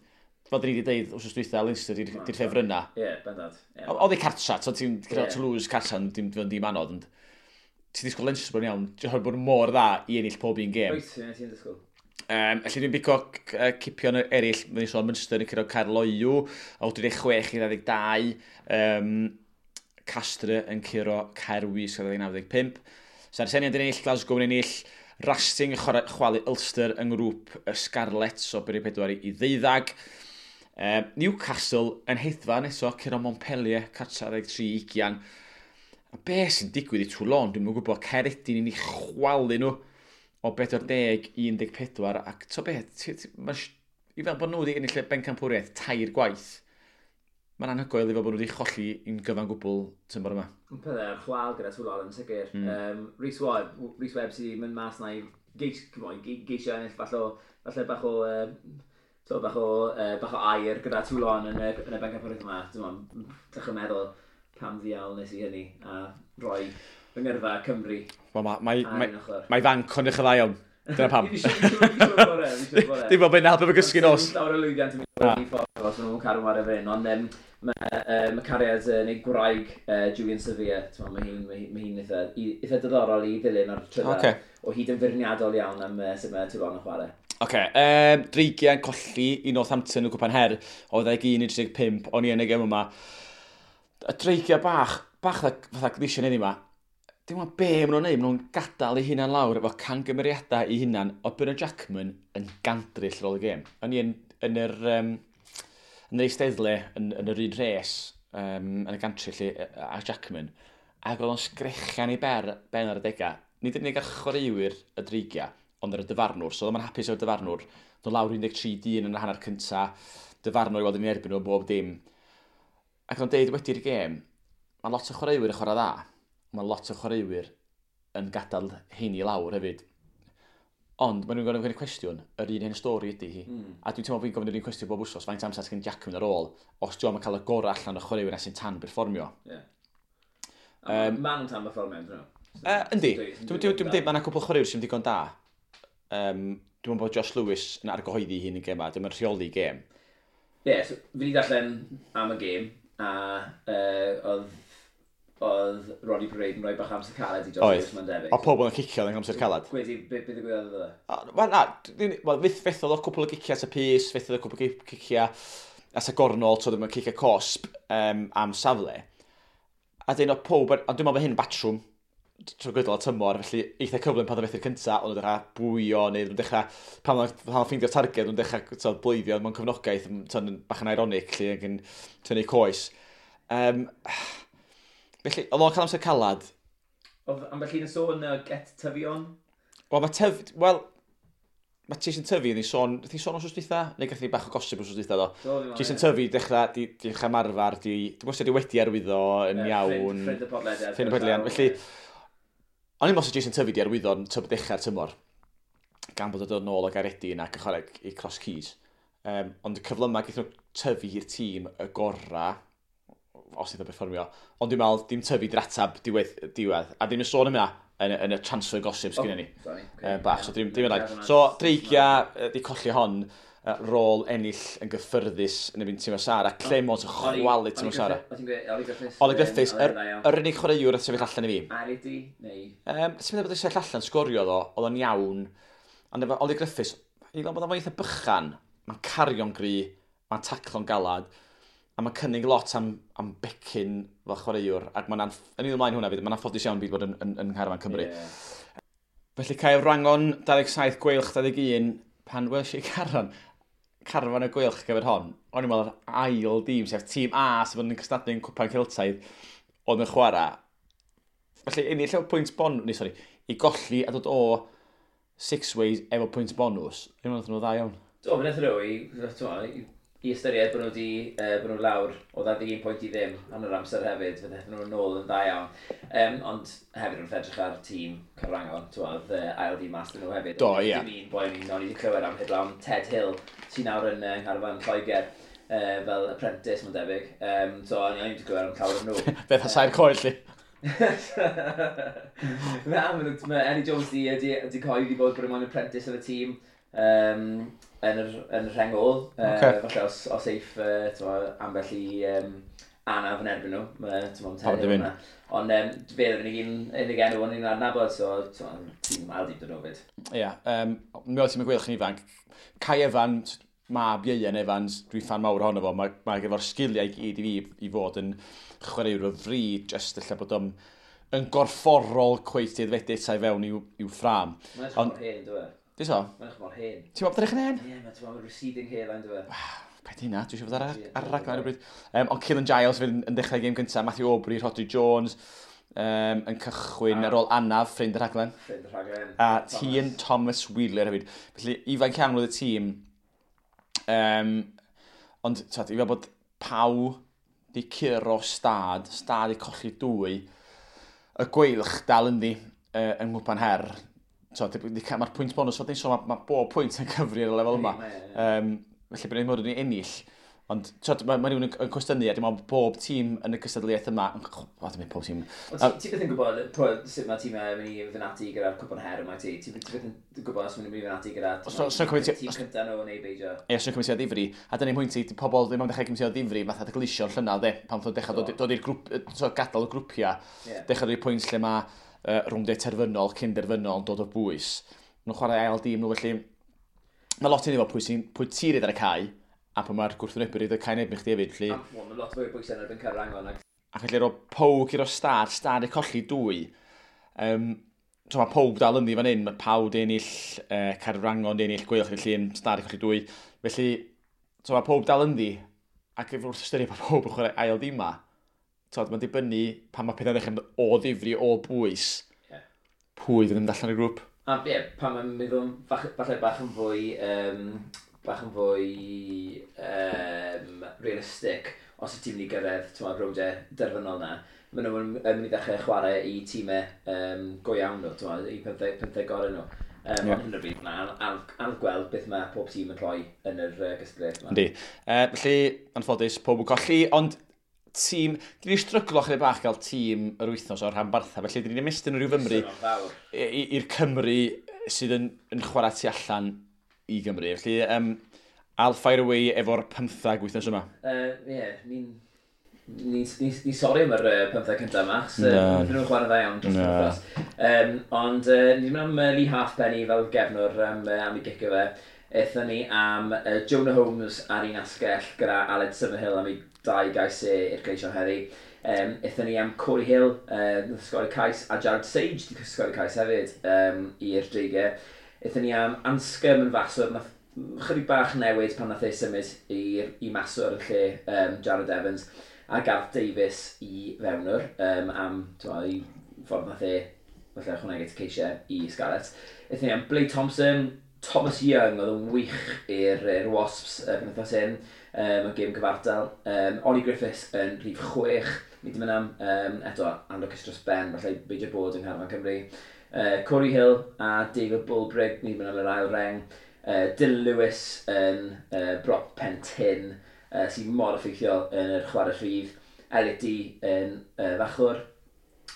fel dyn ni wedi dweud wrth dwytha, Leinster di'r ffefrynna. Ie, yeah, bendant. Yeah. Oedd ei cartra, so ti'n curo Toulouse cartra, dim anodd, ond ti'n disgwyl Leinster bod yn iawn, ti'n bod mor dda i ennill pob un gêm. Wyt, ti'n disgwyl. Felly dwi'n bico cipion eraill, mae'n sôn Munster yn curo Caerloyw, o 36 i 22, Castre yn curo Caerwys o 95. Saraceniaid yn ennill, Glasgow yn ennill, Racing yn chwalu Ulster yng ngrŵp y Scarlets o 24 i 12. Newcastle yn hedfan eto, curo Montpellier, cartra 23-20. A be sy'n digwydd i Toulon, dwi'm yn gwybod, Caeredin yn ei chwalu nhw o 40-14, ac to be, i fel bod nhw wedi ennill y bencampwriaeth tair gwaith, mae'n anhygoel i fel bod nhw wedi cholli un gyfan gwbl tymor yma. Yn pethau ar chwal gyda Toulon yn sicr. Rhys Webb sydd wedi mynd mas na i geisio ennill falle bach o bach o air gyda Toulon yn y bencampwriaeth yma. Dwi'n meddwl pam ddiawl nes i hynny a rhoi fy ngyrfa Cymru. Mae fanc o'n eich dda iawn. Dyna pam. Dim bod fe'n helpu fy gysgu nos. Llawer o lwyddiant yn mynd i ffordd os maen nhw'n cadw ar y fyn, ond mae cariad neu gwraig Julian Sevilla, mae hi'n eitha diddorol i ddilyn ar trydar. O hyd yn feirniadol iawn am sut mae Toulon yn chwarae. Oce, Dreigiau'n colli i Northampton y Cwpan Her o 21-35, o'n i yn y gêm yma. Y Dreigiau bach fatha Gleision heddiw yma, dim ond be maen nhw'n neud, maen nhw'n gadael eu hunan lawr efo cangymeriadau eu hunan o Bernard Jackman yn gandryll ar ôl y gêm. O'n i yn yr eisteddle, yn yr un rhes, yn y gantry lle, a Jackman, ac oedd o'n sgrechian ei ben ar y degau. Nid yn unig ar chwaraewyr y Dreigiau, ond ar y dyfarnwr. So oedd o'n hapus o'r dyfarnwr. Doedd lawr 13 dyn yn y hanner cynta, dyfarnwr i weld yn erbyn nhw bob dim. Ac o'n deud wedi'r gêm, mae lot o chwaraewyr yn chwarae dda. Mae lot o chwaraewyr yn gadael heini lawr hefyd. Ond maen nhw'n gofyn y cwestiwn, yr un hen stori ydy hi. A dwi'n teimlo bod fi'n gofyn yr un cwestiwn bob wsos, faint amser sgen Jackman ar ôl, os dwi'n cael y gorau allan o chwaraewyr na sy'n tan berfformio. Yeah. Maen nhw'n tan berfformio, dyn nhw? Yndi. Dwi'n dweud mae yna cwpl o chwaraewyr sy'n digon da. Dwi'n meddwl bod Josh Lewis yn argyhoeddi hun yn gêm a dwi'n rheoli gêm. Ie, yeah, so, fi wedi darllen am y gêm, a oedd Roddy Parade yn rhoi bach amser caled i Josh Lewis, mae'n debyg. O pobl yn cicio yn amser caled. Gwedi, beth ddigwyddodd iddo fe? Wel, na, wel, fethodd o cwpl o giciau at y pys, fethodd o cwpl o giciau at y gornol, so ddim yn cicio cosp am safle. A dyn o pob, ond dwi'n meddwl bod hyn batrwm trwy gydol y tymor, felly eitha cyflym pan oedd methu'r cynta, ond nhw'n dechrau bwyo, neu nhw'n dechrau, pan oedd ffeindio'r targed, nhw'n dechrau so, bleiddio mewn cefnogaeth, so, bach yn ironic, lle ac yn tynnu coes. Felly, oedd o'n cael amser calad. Oedd ambell un yn sôn get tyfion? Wel, mae tyf... Wel, mae Jason Tyfu, ni sôn, ni sôn wrth dwytha, neu gath ni bach o gosib wrth dwytha, do. Do Jason Tyfu, dechrau, di, dechrau marfer, di, dwi'n gwybod di wedi arwyddo yn iawn. Ffrind y podlediad. Ffrind y podlediad. Felly, o'n i'n meddwl Jason Tyfu di arwyddo yn tyb dechrau'r tymor, gan bod o'n dod nôl o Gaeredin ac yn chwarae i Cross Keys. Ond y cyflymau gaeth nhw tyfu i'r tîm y gorau, os iddo perfformio. Ond dwi'n meddwl, dim tyfu di'r atab diwedd, diwedd. A ddim yn sôn am hynna yn y transfer gossip sgynny ni. Sorry, okay. Bach, so dim yn rhaid. So, Dreigia di colli hon, rôl ennill yn gyffyrddus yn erbyn Timo Sara. Clemons yn chwalu Timo Sara. Oli Griffiths. Oli Griffiths, yr unig chwaraewr a sefyll allan i fi. Aridi, neu? Ti'n meddwl bod yn sefyll allan, sgorio ddo, oedd o'n iawn. Ond efo Oli Griffiths, i fel bod o'n eitha bychan, mae'n cario'n gry, mae'n taclo'n galad, a mae'n cynnig lot am becyn fel chwaraewr, ac mae'n yn un ymlaen hwnna fyd, mae'n anffodus iawn byd bod yn ngharfan Cymru. Yeah. Felly Caerwrangon 27, Gweilch 21, pan welsh i carfan y Gweilch gyfer hon, o'n i'n meddwl yr ail dîm, sef tîm A sydd yn cystadlu yn Cwpan Celtaidd, oedd yn chwarae. Felly ennill efo pwynt bonus, neu sori, i golli a dod o Six Ways efo pwynt bonus, o'n i'n meddwl nhw dda iawn. Do, fe wnaethon nhw i ystyried bod nhw wedi, bod nhw lawr o 21 pwynt i ddim yn yr amser hefyd, fe ddaethon nhw nôl yn dda iawn. Ond hefyd wrth edrych ar tîm Caerwrangon, oedd ail dîm mas nhw hefyd. Do, ie. Dim un boi o'n i wedi clywed am heblaw Ted Hill, sy'n nawr yn ngharfan Lloegr, fel apprentice, mae'n debyg. So o'n i wedi clywed am llawer o'n nhw. Beth a sair coed, lli. Na, mae Eddie Jones di coed i bod yn apprentice yn y tîm. Yn yr rheng ôl. Okay. Falle os eiff ambell i anaf yn erbyn nhw. Mae yna. Ond fe oedd yr unig enw o'n i'n adnabod, so tîm ail dîm dyn nhw fyd. Ie, mi oedd tîm y Gweilch yn ifanc. Kai Evans, mab Ieuan Evans, dwi'n ffan mawr ohono fo, mae efo'r sgiliau i gyd i fi i fod yn chwaraewr o fri, jyst ella bod o'n yn gorfforol cweit aeddfedu eto i fewn i'w ffrâm. Mae'n edrych mor hen, dwi? Di so? Mae'n edrych mor hen. Ti'n meddwl bod edrych yn hen? Ie, mae'n receding hairline, dwi. Paid hynna, dwi eisiau fod ar y raglen ar y bryd. Ond Cillian Giles fydd yn dechrau gêm gyntaf, Matthew Aubrey, Rhodri Jones, yn cychwyn ar ôl anaf, ffrind y rhaglen. Ffrind y rhaglen. A Tian Thomas Wheeler hefyd. Felly, ifanc iawn oedd y tîm. Ond, i fel bod Pau di curo Stad, Stad di colli dwy, y Gweilch dal ynddi yng Nghwpan Her. So, mae'r pwynt bonus, so, mae bob pwynt yn cyfri ar y lefel yma. Felly, bydd ni'n bod yn ennill. Ond mae rhywun yn cwestiynu, a dim ond bob tîm yn y cystadleuaeth yma... O, dim pob tîm. Ti byth yn gwybod sut mae tîmau yn mynd i fynd ati gyda'r Cwpan Her yma, ti? Ti byth yn gwybod os maen nhw'n mynd i fynd ati gyda'r tîm cyntaf nhw neu beidio? Ie, os nhw'n cymryd o ddifri. A dyna'n pwynt i, pobl ddim yn dechrau cymryd o ddifri, fatha dy glisio'r llynedd, de, pan wnaethon dechrau dod i'r grŵp, gadael y grwpiau, dechrau dod i'r pwynt lle mae rwndiau terfynol, cyn derfynol yn dod o bwys. Nhw'n chwarae ail dîm nhw, felly mae lot i ni fod pwy ti reid ar y cae, a pwy mae'r gwrthwynebwyr reid ar y cae neb i chdi hefyd. Felly... Mae lot fwy o bwysau yn erbyn Caerwrangon. Ac felly roedd Pau i'r Stad, Stad i colli dwy. So mae Pau dal ynddi fan hyn, mae Pau di ennill, Caerwrangon di ennill, Gweilch di Llun, Stad i colli dwy. Felly, so mae Pau dal ynddi, ac wrth ystyried bod pawb yn chwarae ail dîm ma, mae'n dibynnu pan mae pethau'n dechrau mynd o ddifri, o bwys, pwy fydd yn mynd allan o'r grŵp. A ie, pan mae'n meddwl falle bach yn fwy realistic, os y tîm ni gyrraedd rowndiau derfynol na, maen nhw'n mynd i ddechrau chwarae i tîmau go iawn nhw, i 15 gorau nhw. Ond hyn o bryd, mae'n anodd gweld beth mae pob tîm yn rhoi yn yr gystadleuaeth yma. Yndi. Felly, anffodus, pob yn colli, ond tîm, dyn ni'n stryglo chydig bach gael tîm yr wythnos o'r rhanbarthau, felly dyn ni'n ymestyn rhyw Fymru i'r Cymru sydd yn chwarae tu allan i Gymru. Felly, I'll fire away efo'r 15 wythnos yma. Ie, ni'n Ni sori am yr 15 cyntaf yma, achos nhw'n chwarae dda iawn dros y wythnos. Ond ni wedi mynd am Lee Halfpenny fel gefnwr am ei gicio fe. Aethon ni am Jonah Holmes ar un asgell gyda Aled Summerhill am ei 2 gais e i'r Gleision heddi. Aethon ni am Corey Hill, nath sgorio cais, a Jared Sage di sgorio cais hefyd i'r Dreigiau. Aethon ni am Anscombe yn faswr, nath chydig bach newid pan nath ei symud i maswr yn lle Jared Evans, a Garth Davies i fewnwr am i ffordd nath e falle ychwanegu at y ceisiau i Scarlets. Aethon ni am Blake Thompson, Thomas Young oedd yn wych i'r Wasps penwythnos hyn, yn gêm cyfartal. Ollie Griffiths yn rhif 6, ni wedi mynd am, eto, anlwcus dros ben, falle beidio bod yng Ngharfan Cymru. Corey Hill a David Bulbrig, ni wedi mynd am yr ail reng. Dylan Lewis yn brop pen tyn, sy'n mor effeithiol yn yr chwarae rhydd. Elliot Dee yn fachwr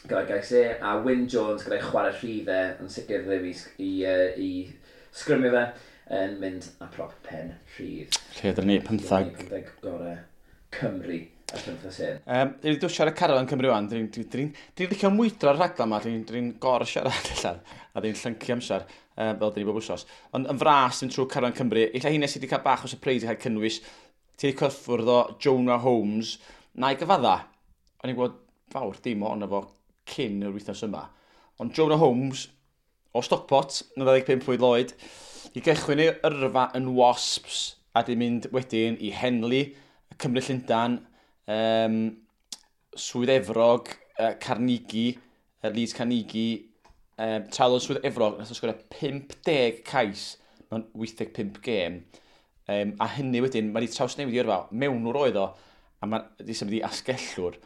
gyda'i gais e, a Wyn Jones gyda'i chwarae rhydd e, yn sicr ddim i sgrymio fe, yn mynd â prop pen rhydd. Lle ydyn ni, 15. 15 gorau Cymru y penwythnos hyn. Dwi wedi dod siarad carafan Cymru wan, dwi'n licio mwydro'r rhaglen yma, dwi'n gor siarad allan, a dwi'n llyncu amser, fel dyn ni bob wsos. Ond yn fras, dwi'n trwy carafan Cymru, illa hynny sydd wedi cael bach o surprise i cael cynnwys, ti wedi cyffwrdd o Jonah Holmes, na i gyfadda, o'n i'n gwybod fawr dim ohono fo cyn yr wythnos yma. Ond Jonah Holmes, o Stockport, yn 25 mlwydd oed, i gychwyn ei yrfa yn Wasps, a di mynd wedyn i Henley, Cymru Llundain, Swydd Efrog, Carnegie, Leeds Carnegie, tra oedd Swydd Efrog, nath o sgorio 50 cais mewn 85 gêm. A hynny wedyn, mae wedi trawsnewid i yrfa, mewnwr oedd o, a mae wedi symud i asgellwr.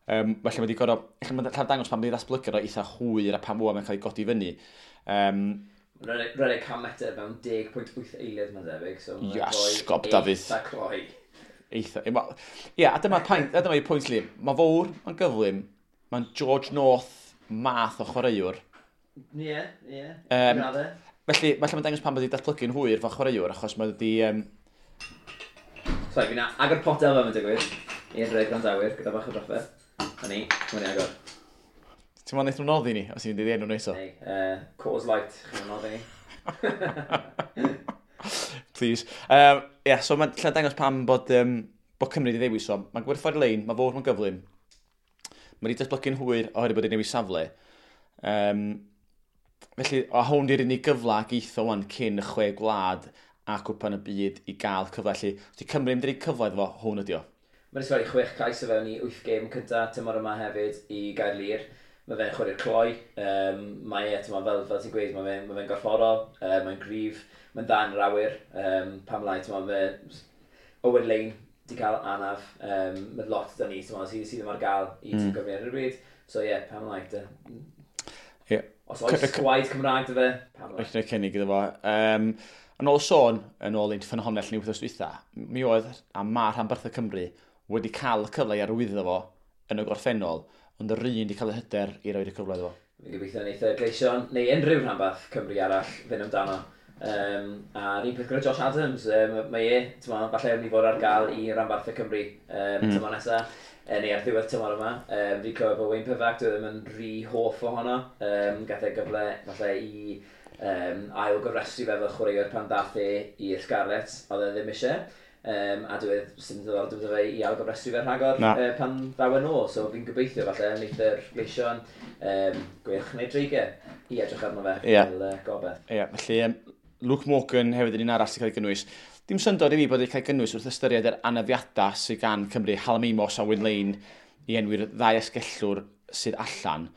Felly mae wedi gorfod, ella mae'n llawer dangos pan mae wedi ddatblygu o eitha hwyr a pan fwy mae'n cael ei godi fyny. Rhedeg 100 metr mewn 10.8 eiliad mae'n debyg. So Iasgob, Dafydd. Eitha cloi. Eitha. Ie, a dyma'r pwynt, a dyma'r pwynt li. Mae fawr, mae'n gyflym, mae'n George North math o chwaraewr. Ie, ie. Felly, mae'n dangos pan mae wedi datblygu'n hwyr fel chwaraewr, achos mae wedi... Sorry, fi'n agor potel fel mae'n digwydd i'r gwrandawyr gyda bach o drafferth. Na ni, mae'n i agor. Ti'n meddwl wnaeth nhw noddi ni, os ti'n mynd i enw nhw eto? Ei, Coors Light, chi'n noddi ni. Please. Yeah, so mae'n lle dangos pam bod Cymru wedi ddewis o. Mae'n gwerthfawr lein, mae fawr, mae'n gyflym. Mae wedi datblygu'n hwyr oherwydd bod wedi newid safle. Felly, a hwn di'r unig gyfle geitho wan cyn y 6 gwlad a cwpan y byd i gael cyfle. Felly, os di Cymru mynd i roi cyfle iddo fo, hwn ydi o. Mae wedi sgori 6 cais o fewn i 8 gêm cynta tymor yma hefyd i Gaerlŷr. Mae fe'n chwarae'r cloi. Mae e, fel ti'n gweud, mae fe'n gorfforol, mae'n gryf, mae'n dda yn yr awyr. Pam lai, mae Owen Lane di cael anaf. Mae lot da ni, sydd ddim ar gael i tîm Cymru ar y bryd. So ie, yeah, pam lai. Yeah. Os oes gwaed Cymraeg dy fe, pam lai. Rhaid cynnig iddo fo. Yn ôl sôn, yn ôl ein ffynhonnell ni wythnos dwytha, mi oedd a ma rhanbarthau Cymru wedi cael y cyfle i arwyddo fo yn y gorffennol, ond yr un wedi cael y hyder i roi'r cyfle iddo fo. Fi'n gobeithio wneith y Gleision, neu unrhyw rhanbarth Cymru arall, fynd amdano. A'r un peth gyda Josh Adams, mae e, falle mynd i fod ar gael i rhanbarthau Cymru tymor nesaf, neu ar ddiwedd tymor yma. Fi'n clywed bod Wayne Pivac, dwi ddim yn rhy hoff ohono. Gath e gyfle falle i ail gofrestru fe fel chwaraewr pan ddath e i'r Scarlets, oedd e ddim eisiau. A dwi sy'n ddiddordeb iddo fe i ail gofrestru fe rhagor pan ddaw yn ôl, so fi'n gobeithio falle wneith yr Gleision Gweilch neu Dreigiau i edrych arno fe fel gobeith. Ie, felly Luke Morgan hefyd yn un arall sy'n cael ei gynnwys. Dim syndod i fi bod wedi cael ei gynnwys wrth ystyried yr anafiadau sydd gan Cymru, Hallam Amos a Wyn Lane i enwi'r ddau asgellwr sydd allan.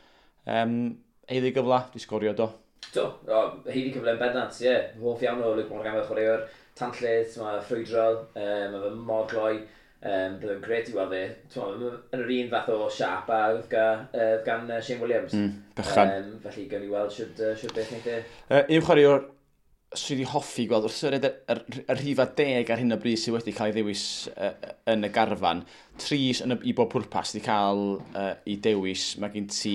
Haeddu gyfle, di sgorio do. Do, haeddu cyfle yn bendant, ie. Hoff iawn o Luke Morgan fel chwaraewr. Tanllyd, mae ffrwydrol, mae fe mor gloi, bydd yn grêt i weld fe. Yn yr un fath o siâp a oedd gan Shane Williams. Bychan. Felly gawn ni weld siwt beth wneith e. Un chwaraewr sydd wedi hoffi gweld wrth ystyried y rhifa 10 ar hyn o bryd sydd wedi cael ei ddewis yn y garfan. 3 yn i bob pwrpas sydd wedi cael ei dewis. Mae gen ti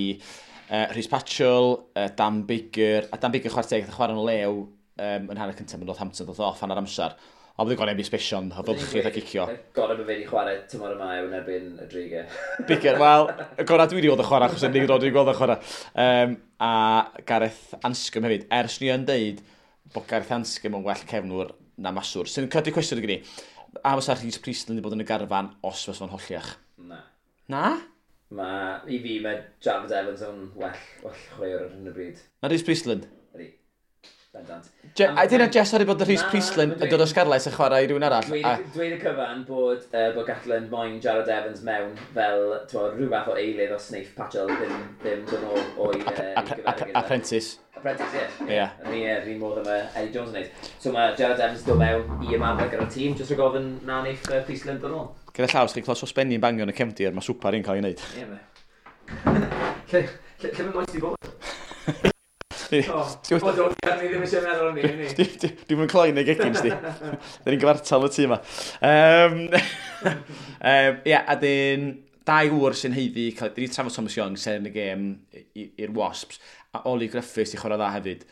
Rhys Patchell, Dan Biggar, a Dan Biggar chwarae teg, chwarae'n lew yn hanner cyntaf yn Northampton, ddoth off hanner amser. Ond bydd gorau sbesion, o fylchu a cicio. Gorau bod fe wedi chwarae tymor yma yw yn erbyn y Dreigiau. Bigger, wel, y gorau dwi wedi gweld y chwarae, achos yn unig dwi wedi gweld y chwarae. A Gareth Anscombe hefyd, ers ni yn deud bod Gareth Anscombe yn well cefnwr na maswr. Sy'n codi cwestiwn i gynnu, a fysa Rhys Priestland wedi bod yn y garfan os fysa fo'n holliach? Na. Na? Ma, i fi, mae Jarrod Evans yn well chwaraewr ar hyn o bryd. Na Rhys Priestland? Ydy. Bendant. A dyna Jess wedi bod Rhys Priestland yn dod o Scarlets yn chwarae i rhywun arall. Dweud y cyfan bod Gatland moyn Jarrod Evans mewn fel rhyw fath o eilydd os wneith Patchell ddim dod nôl o'i Apprentice. Apprentice, ie. Yr un modd yma Eddie Jones yn neud. So mae Jarrod Evans dod mewn i ymarfer gyda'r tîm, jyst rhag ofn na wneith Priestland dod nôl. Gyda llaw, os chi'n clywed sosbenni'n bangio yn y cefndir, mae swpar i'n cael ei wneud. Ie, me. Lle mae moes di bod? O, do, ni ddim eisiau meddwl am ni. Dwi'n mynd cloi neu gegin, sti. Da ni'n gyfartal y tŷ yma. Ie, a dyn, dau ŵr sy'n haeddu, dyn ni trafod Thomas Young, seren y gêm i'r Wasps, a Ollie Griffiths i chwarae dda hefyd.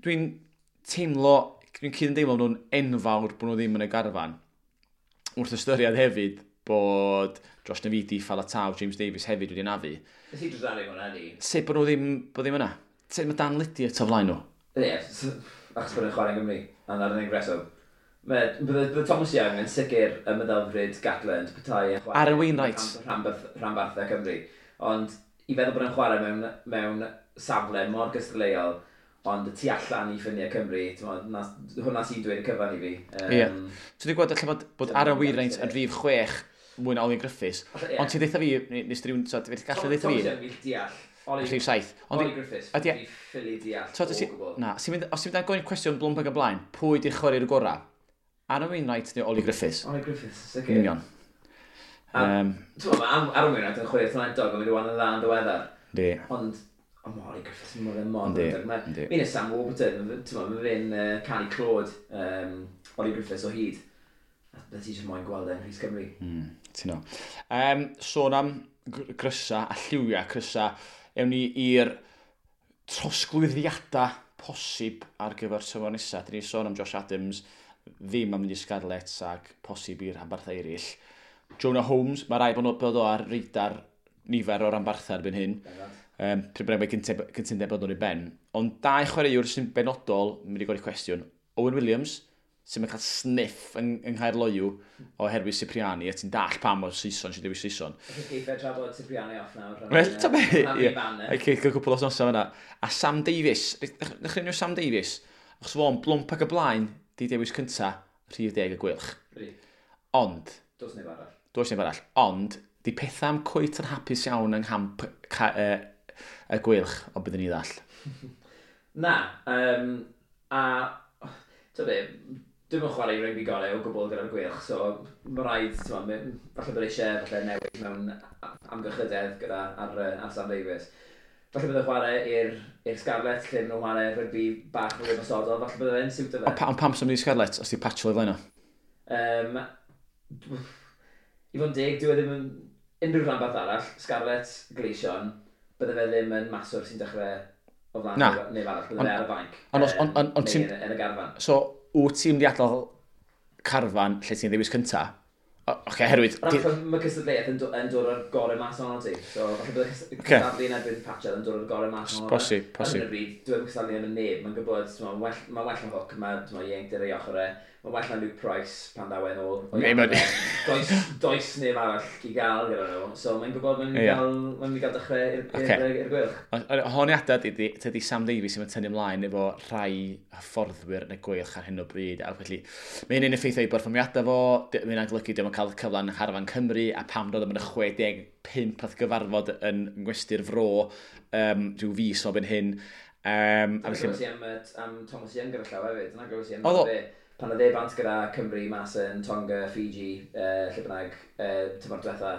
Dwi'n teimlo, dwi'n cyd-ymdeimlo nhw'n enfawr bod nhw ddim yn y garfan. Wrth ystyried hefyd bod Josh Navidi, Faletau, James Davies hefyd wedi nafu. Nes i drydaru hwnna, ni. Sut bod nhw ddim yna? Sut mae Dan Lydiate o flaen nhw? Ie, achos bod nhw'n chwarae yng Nghymru, a na'r unig reswm. Bydde Thomas Young yn sicr y meddylfryd Gatland petai yn chwarae Aaron Wainwright. Rhanbarthau Cymru. Ond i feddwl bod nhw'n chwarae mewn safle mor gystadleuol, ond y tu allan i ffiniau Cymru, hwnna sy'n dweud y cyfan i fi. Ie. So dwi'n gweld allan bod Aaron Wainwright yn rhif 6 mwy na Ollie Griffiths, ond ti'n deitha fi, nes rhywun, so, ti'n gallu deitha fi? Thomas Young fi'n deall. Rhif 7. Ollie Griffiths, fi'n ffili deall o gwbl. Na, os ti'n mynd ar gofyn cwestiwn blwmp ag y blaen, pwy di'r chwaraewr gorau? Aaron Wainwright neu Ollie Griffiths? Ollie Griffiths, sicr. Union. Mae Aaron Wainwright yn chwarae talentog, ond wedi wan yn dda yn ddiweddar. Di. Ond mae Ollie Griffiths yn mor ddewr. Mi'n y Sam Warburton, mae fe'n canu clod Ollie Griffiths o hyd. A bydde ti jyst moyn gweld e'n Rhys Cymru. Ti'n o. Sôn am grysa a lliwiau crysa, ewn ni i'r trosglwyddiadau posib ar gyfer tymor nesaf. Dyn ni sôn am Josh Adams, ddim am mynd i Scarlets ac posib i'r rhanbarthau eraill. Jonah Holmes, mae rai bod o ar radar nifer o'r rhanbarthau erbyn hyn. Pryd bynnag mae cytundeb bod nhw'n ei ben. Ond dau chwaraewr sy'n benodol, mynd i godi cwestiwn, Owen Williams, sy'n cael sniff yng Nghaerloyw oherwydd Cipriani, a ti'n dall pam o'r Saeson sy'n dewis Saeson. Felly geiffe trafod Cipriani off nawr. Wel, ta be? Ie, cael cwpl o wythnosau fan'na. A Sam Davies, ddechrau Sam Davies, achos fo'n blwmp ac y blaen, di dewis cynta, rhif 10 y Gweilch. Ond... Does neb arall. Does neb arall. Ond, di pethau am cweit yn hapus iawn yng nghamp y Gweilch, o byddwn ni ddall. Na, a... Ta be, dwi'm yn chwarae rygbi gorau o gwbl gyda'r Gweilch, so mae rhaid, falle bod eisiau falle newid mewn amgylchydedd gyda ar Sam Davies. Falle bydd e'n chwarae i'r Scarlets, lle maen nhw'n chwarae rygbi bach fwy ymosodol, falle bydd e'n siwtio fe. Ond pam sy'n mynd i Scarlets, os di Patchell i flaen o? I fod yn deg, dyw e ddim yn unrhyw rhanbarth arall, Scarlets, Gleision, bydde fe ddim yn maswr sy'n dechrau o flaen neb arall, bydde fe ar y fainc, neu yn y garfan. So, wyt ti'n mynd i adael carfan lle ti'n ddewis cynta? Oce, herwydd... Mae cystadleuaeth yn dod o'r gorau mas ohono ti. So, falle bydd cystadlu yn erbyn Patchell yn dod o'r gorau mas ohono. Posib, posib. Ar hyn o bryd, dyw e'm cystadlu yn y neb. Mae'n gwybod, mae'n well na Hook, mae ieuenctid ar ei ochr e. Mae'n well na Luke Price pan ddaw e'n ôl. Does neb arall i gael gyda nhw. So, mae'n gwybod mae'n mynd i gael dechrau i'r Gweilch. Honiadau tydi Sam Davies sy'n tynnu ymlaen efo rhai hyfforddwyr yn y Gweilch ar hyn o bryd. A felly, mae hynny'n effeithio i berfformiadau fo, mae hynna'n golygu dio'm yn cael cyfle yn Ngharfan Cymru, a pam dod am yn y 65 nath gyfarfod yn ngwesty'r fro rhyw fis o ben hyn. Dyna glywes i am Thomas Young gyda llaw hefyd. Dyna glywes i am fe. Pan oedd e bant gyda Cymru mas yn Tonga, Fiji, lle bynnag, tymor diwetha,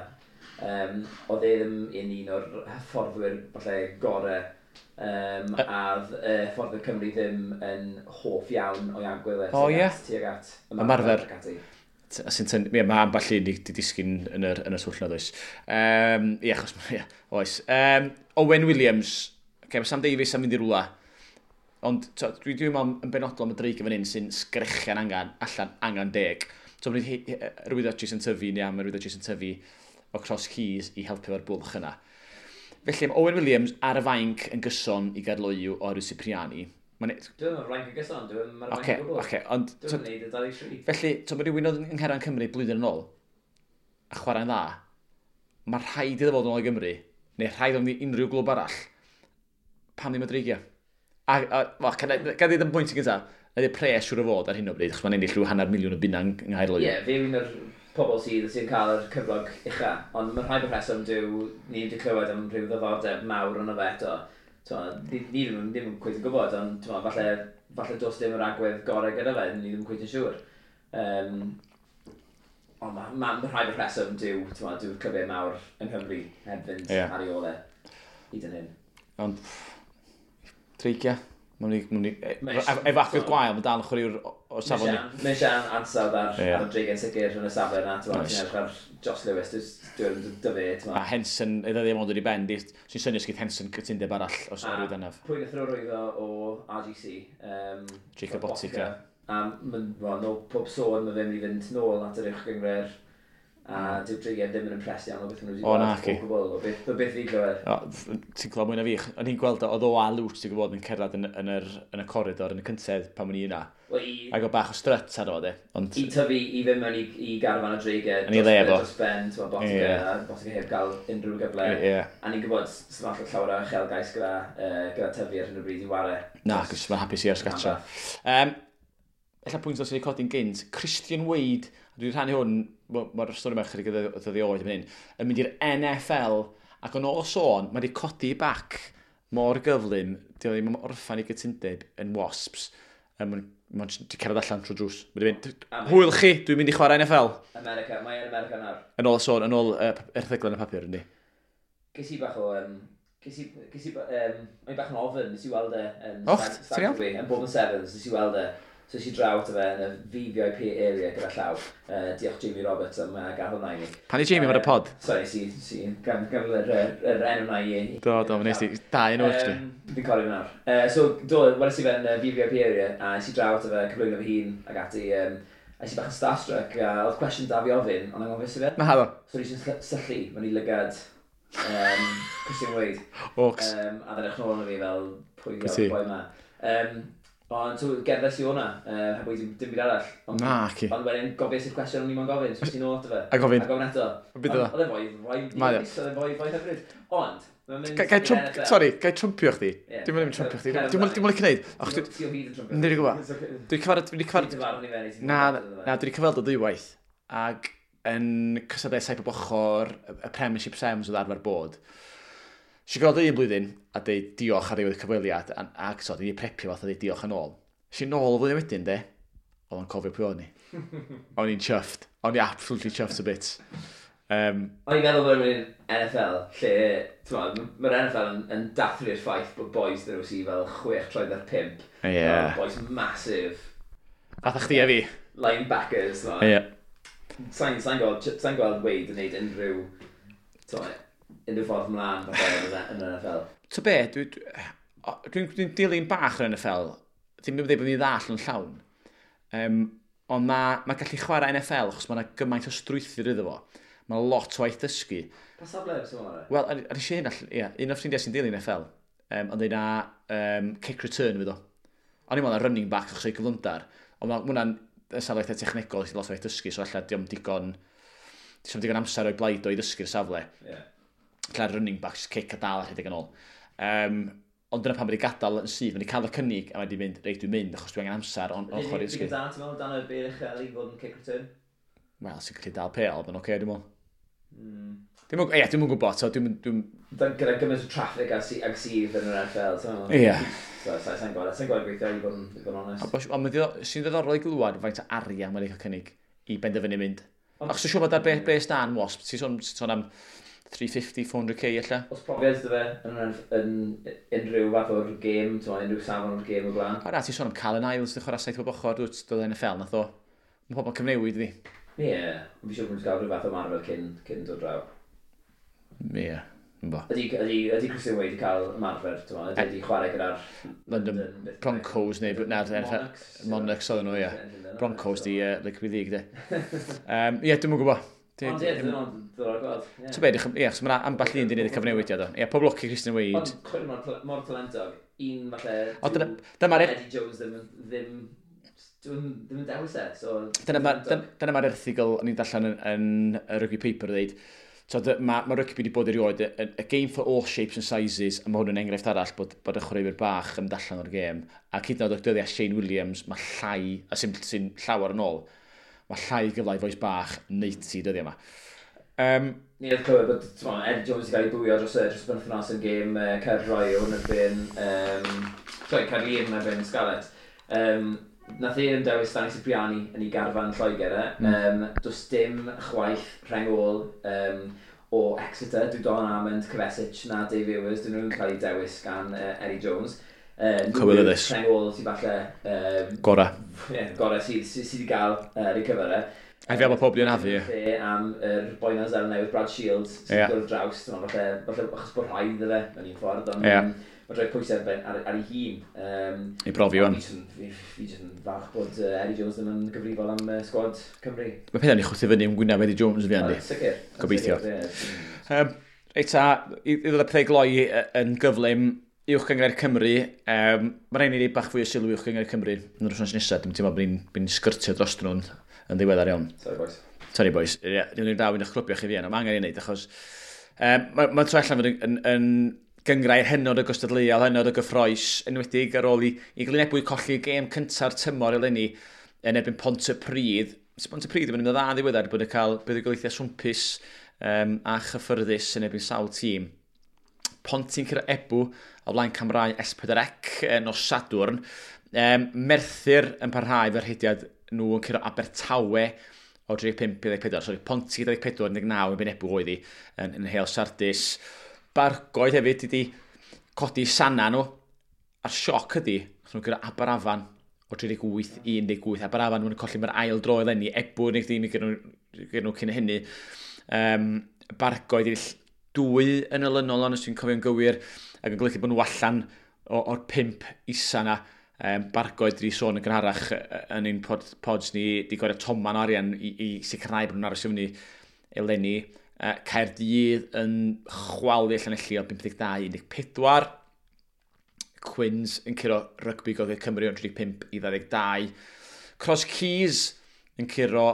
oedd e ddim yn un o'r hyfforddwyr falle gorau, a hyfforddwyr Cymru ddim yn hoff iawn o'i agwedd e tuag at ymarfer. Mae ambell un di disgyn yn y twll na, does. Ie, achos, ie, oes. Owen Williams, okay, mae Sam Davies am mynd i rwla. Ond dwi'n dwi meddwl yn benodol am y Dreigiau fan hyn sy'n sgrechian angen, allan angen 10. So, mae'n rwyddo Jason Tyfu neu am rwyddo Jason Tyfu o Cross Keys i helpu efo'r bwlch yna. Felly, mae Owen Williams ar y fainc yn gyson i Gaerloyw o oherwydd Cipriani. Dwi'n meddwl fainc yn gyson, dwi'n meddwl fainc yn gwbl. Okay, ond... Dwi'n meddwl y 23. Felly, so, mae rhywun oedd yng Ngherran Cymru blwyddyn yn ôl, a chwarae'n dda, mae rhaid iddo fod yn ôl i Gymru, neu rhaid iddo fod i unrhyw glwb arall, pam ddim y Dreigiau? A wel, gan ddweud yn bwynt yn gyntaf, ydy pres siŵr o fod ar hyn o bryd, achos mae'n ennill rhyw £500,000 yng Nghaerloyw. Ie, yeah, fe yw un o'r pobl sydd cael yr cyflog ucha, ond mae'n rhaid bod rheswm dyw ni wedi clywed am rhyw ddiddordeb mawr yno fe eto. Ni ddim yn cweit yn gwybod, ond t'mo, falle does dim yr agwedd gorau gyda fe, ni ddim yn cweit yn siŵr. Ond ma rhaid bod rheswm dyw, dyw'r clybiau mawr yng Nghymru heb fynd ar ei ôl e hyd yn hyn. Ond, Dreigiau. Efo agwedd gwael, mae dal yn chwaraewr o safon ni. Mae eisiau ansawdd ar y Dreigiau'n sicr yn y safle yna. Ti'n edrych ar Josh Lewis, dwi'n dyfu. A Henson, iddo ddim ond wedi ben, sy'n synnu os gyda Henson cytundeb arall os o'r rwydd anaf. Pwy nath rwyddo o RGC? Jacob Botica. A no, pob sôn, mae fe'n mynd i fynd nôl at yr uwch gynghrair. A dyw'r Dreigiau ddim yn impressed iawn o beth maen nhw wedi gweld o gwbl, o beth fi glywed. Ti'n clywed mwy na fi. O'n i'n gweld oedd o a Lwt, ti'n gwybod, yn cerdded yn y coridor, yn y cyntedd pan o'n i yna. Ac o bach o strut ar o, de. Ond... I tyfu, i fynd mewn i garfan y Dreigiau, dros ben, ti'n Botica, a Botica heb gael unrhyw gyfle. A ni'n gwybod, sy'n falle llawer o uchelgais gyda tyfu ar hyn o bryd i ware. Na, cos mae'n hapus i ers gatra. Ella pwynt os wedi codi'n gynt, Christian Wade, a dwi'n rhannu hwn, mae'r stori yma chydig o ddyddiau oed yn hyn, yn mynd i'r NFL, ac yn ôl sôn, mae wedi codi bac mor gyflym, di o ddim yn orffan i gytundeb yn Wasps, mae'n wedi cerdded allan trwy drws. Mae wedi mynd, hwyl chi, dwi'n mynd i chwarae NFL. America, mae yn America nawr. Yn ôl sôn, yn ôl erthygl yn y papur, yndi. Ges i bach o... O'n i bach yn ofyn, nes i weld e yn yn Bob yn Sevens, nes i weld e. So nes i draw ato fe yn y VVIP area gyda llaw. Diolch Jamie Roberts am gael hwnna i ni. Pan i Jamie ar y pod? Sorry, si, gan yr enw na i. Do, nes i, da enw, actually. Fi'n cofio fe nawr. So, do, weles i fe yn y VVIP area, a nes i draw ato fe, cyflwyno fy hun, ac ati, a nes i bach yn starstruck, a oedd cwestiwn da fi ofyn, ond anghofio i fe. Na, do. So nes i'n syllu, mewn i lygad Christian Wade. Ox. A dden eich nôl arno fi fel, pwy yw'r boi ma. Ond so, gerddes i hwnna, heb wedi dim byd arall. Na, ci. Ond wedyn gofies i'r cwestiwn o'n i'n gofyn, so ti'n ôl ato fe. A gofyn. A gofyn eto. Oedd e'n foi, oedd e'n foi hyfryd. Ond, mae'n mynd i'r NFL. Sorry, gai trumpio chdi? Dwi'n mynd trumpio chdi. Dwi'n mynd licio gwneud. Ti o hyd yn trumpio. Dwi'n gwybod. Dwi'n cyfarfod... Na, dwi wedi cyfweld o ddwywaith. Ac yn cystadlau saith bob ochr, y Premiership Sevens oedd arfer bod. Nes i gweld un blwyddyn a deud diolch ar ddiwedd y cyfweliad, ac so, dwi wedi prepio fath a deud diolch yn ôl. Nes i nôl y flwyddyn wedyn, de, oedd o'n cofio pwy o'n i. O'n i'n chuffed. O'n i absolutely chuffed a bit. O'n i'n meddwl bod yn NFL, lle, mae'r NFL yn dathlu'r ffaith bod boys dyn nhw sydd fel 6 troed ar 5. Yeah. Boys massive. Fatha chdi a fi. Linebackers. Yeah. Sa'n gweld Wade yn neud unrhyw, unrhyw ffordd mlaen yn yr NFL. Ta be, dwi'n dilyn bach o'r NFL, ddim yn dweud bod ni'n ddall yn llawn, ond mae gallu chwarae NFL, achos mae yna gymaint o strwythur iddo fo. Mae lot o waith dysgu. Pa safle sy'n chwarae? Wel, ar eisiau hyn, ie, un o'r ffrindiau sy'n dilyn NFL, ond dweud na kick return fydd o. O'n i'n meddwl na running back achos o'i gyflymder, ond mae hwnna'n safle eitha technegol, lot o waith dysgu, so alla diom digon amser o'i blaid o i ddysgu'r safle. Yeah. Lle running backs, kick a dal a rhedeg yn ôl. Ond dyna pan wedi gadael yn syth, wedi cael y cynnig a wedi mynd, reit dwi'n mynd, achos dwi angen amser o'n ochr i ddysgu. Ydy da, ti'n meddwl, dan y bel uchel i fod yn kick return? Wel, sy'n gallu dal pêl, mae'n oce, dwi'n meddwl. Ie, dwi'm yn gwybod, so dwi'm... Gyda gymaint o traffic ag sydd yn yr NFL, ti'n meddwl? Ie. So, sa'n gweld gweithio i fod yn onest. Ond sy'n ddiddorol i glywed faint o arian mae'n cael cynnig i benderfynu mynd. Achos dwi'n siŵr bod ar bres dan Wasp, ti'n sôn am 350, 400k ella. Os profiad dy fe yn unrhyw fath o'r gêm, unrhyw safon o'r gêm o blaen. O na, ti'n sôn am Callum Isles, ti'n chwarae saith bob ochr, dod NFL, nath o. Mae pobl cyfnewid iddi. Ie, ond fi siŵr bod nhw'n cael rhyw fath o marfer cyn dod draw. Ie, Ynddo. Ydy Christian Wade wedi cael ymarfer, ti'n meddwl? Ydy wedi chwarae gyda'r London Broncos neu na, Monarchs. Monarchs oedden nhw, ie. Broncos di Rugby League, de. Ie, dwi'm yn gwybod. Ond ie, dwi'n diddorol gweld. Ie. Ti'n beth, ie, achos mae ambell un di wneud y cyfnewidiad o. Ie, pob lwc i Christian Wade. Ond chwarae mor talentog. Un falle Ond dyma'r Eddie Jones ddim yn dewis e. So, Dyna mae'r erthygl o'n i'n darllen yn y Rugby Paper dweud. So, ma rygbi wedi bod erioed, a game for all shapes and sizes, a mae hwn yn enghraifft arall bod y chwaraewyr bach yn allan o'r gêm. A hyd yn oed o'r dyddiau Shane Williams, mae llai, a sy'n llawer yn ôl, mae llai gyfle i fois bach neud ti dyddiau yma. Ni oedd clywed bod, t'mo, Eddie Jones wedi cael ei bwio dros y penwythnos yn gêm Caerloyw yn erbyn, sorry, Caerlŷr yn erbyn Scarlets. Nath e ddim dewis Danny Cipriani yn ei garfan Lloegr e. Does dim chwaith rheng ôl o Exeter, dyw Don Armand, Kvesic na Dave Ewers, dyn nhw'n cael eu dewis gan Eddie Jones. Cywilyddus. Rheng ôl sydd falle Gora. Ie, gore sydd wedi gael ei cyfer e. A fel mae pob di anafu, ie. Lle am yr boi na Seland Newydd, Brad Shields, sy'n dod ar draws, ti'n meddwl, falle achos bod rhaid iddo fe mewn un ffordd, ond mae'n rhoi pwysau ar ei hun. I brofi wan. Fi jyst yn falch bod Eddie Jones ddim yn gyfrifol am sgwad Cymru. Mae pethau'n ei chwthu fyny yn gwyneb Eddie Jones fi, Andy. O, sicr. Gobeithio. Sicr, ie. Reit ta, i ddod â pethau gloi yn gyflym, Uwch Gynghrair Cymru, mae rhaid i ni roi bach fwy o sylw i Uwch Gynghrair Cymru yn yr wythnos nesaf. Dwi'n teimlo bod ni'n sgyrtio dros nhw'n yn ddiweddar iawn. Sorry boys. Sorry boys. Ie, dwi'n dal un o'ch clwbio chi fi yna. Mae angen ei wneud achos mae'n troi allan fod yn gynghrair hynod o gystadleuol, hynod o gyffrous, enwedig ar ôl i Glyn Ebwy colli gêm cynta'r tymor eleni yn erbyn Pontypridd. So Pontypridd yn mynd yn dda yn ddiweddar bod yn cael buddugoliaethau swmpus a chyffyrddus yn erbyn sawl tîm. Ponty'n curo Ebw o flaen camrau S4C nos Sadwrn. Merthyr yn parhau fe'r rhediad nhw yn curo Abertawe o 35 i 24. Sorry, Ponty 24, 19 yn erbyn Ebw oedd hi yn Heol Sardis. Bargoed hefyd wedi codi sana nhw. A'r sioc ydi, nath nhw guro Aberafan o 38 i 18. Aberafan nhw'n colli mae'r ail dro eleni. Ebw yn eich dim i gyda nhw cyn hynny. Bargoed i 2 yn olynol, ond os dwi'n cofio'n gywir, ac yn golygu bod nhw allan o'r 5 isa na. Bargoed wedi sôn yn gynharach yn ein pods ni, di gwario toman o arian i sicrhau bod nhw'n aros i fyny eleni. Caerdydd yn chwalu Llanelli o 52 i 14. Quins yn curo Rygbi Gogledd Cymru o 35 i 22. Cross Keys yn curo,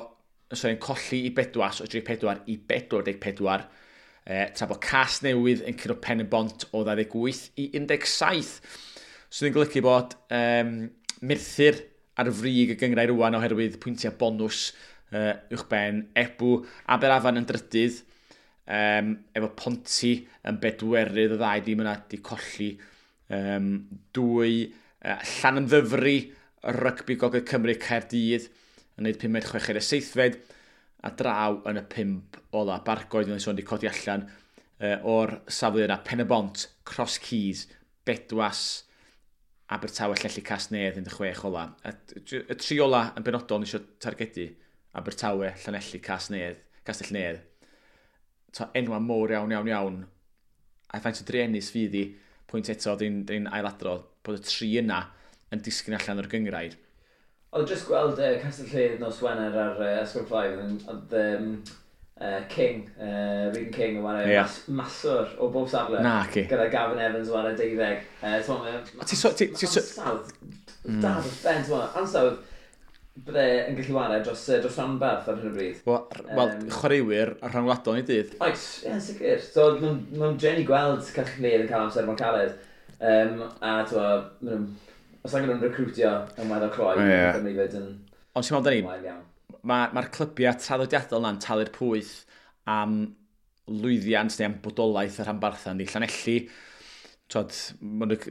sorry, yn colli i Bedwas o 34 i 44. Tra bod Casnewydd yn curo Pen y Bont o 28 i 17. Sydd yn golygu bod Merthyr ar frig y gynghrair rŵan oherwydd pwyntiau bonws uwchben Ebw. Aberafan yn drydydd, efo Ponty yn bedwerydd, y ddau dîm yna di colli 2. Llanymddyfri, Rygbi Gogledd Cymru, Caerdydd yn neud pumed, chweched a seithfed, a draw yn y 5 ola. Bargoed yn sôn di codi allan o'r safle yna. Pen y Bont, Cross Keys, Bedwas, Abertawe, Llanelli, Casnewydd yn 16 ola. A y 3 ola yn benodol ni eisiau targedu. Abertawe, Llanelli, Casnewydd, Castell Nedd. Ta enwa mowr iawn, iawn, iawn. A faint o druenus fydd i, pwynt eto, dyn ailadrodd, bod y 3 yna yn disgyn allan o'r gynghrair. Oedd jyst gweld Castell Nedd nos Wener ar Ysgol Five, oedd King, Regan King yn chwarae maswr o bob safle. Na, ci. Gyda Gavin Evans yn chwarae 12. T'mo, A ti so- ti- ti so- ansawdd da dros ben, t'mo, ansawdd bydde yn gallu chwarae dros rhanbarth ar hyn o bryd. Wel, chwaraewyr a rhyngwladol ni dydd. Oes, ie, yn sicr. So, ma'n drueni gweld Castell Nedd yn cael amser mor caled. A, t'mo, ma' nhw'n, os angen nhw'n recrwtio yn weddol cloi, Cymru fyd yn Ond ti'n meddwl, Dani, wael iawn. Mae'r clybiau traddodiadol na'n talu'r pwyth am lwyddiant neu am bodolaeth y rhanbarthau ni. Llanelli, t'wod,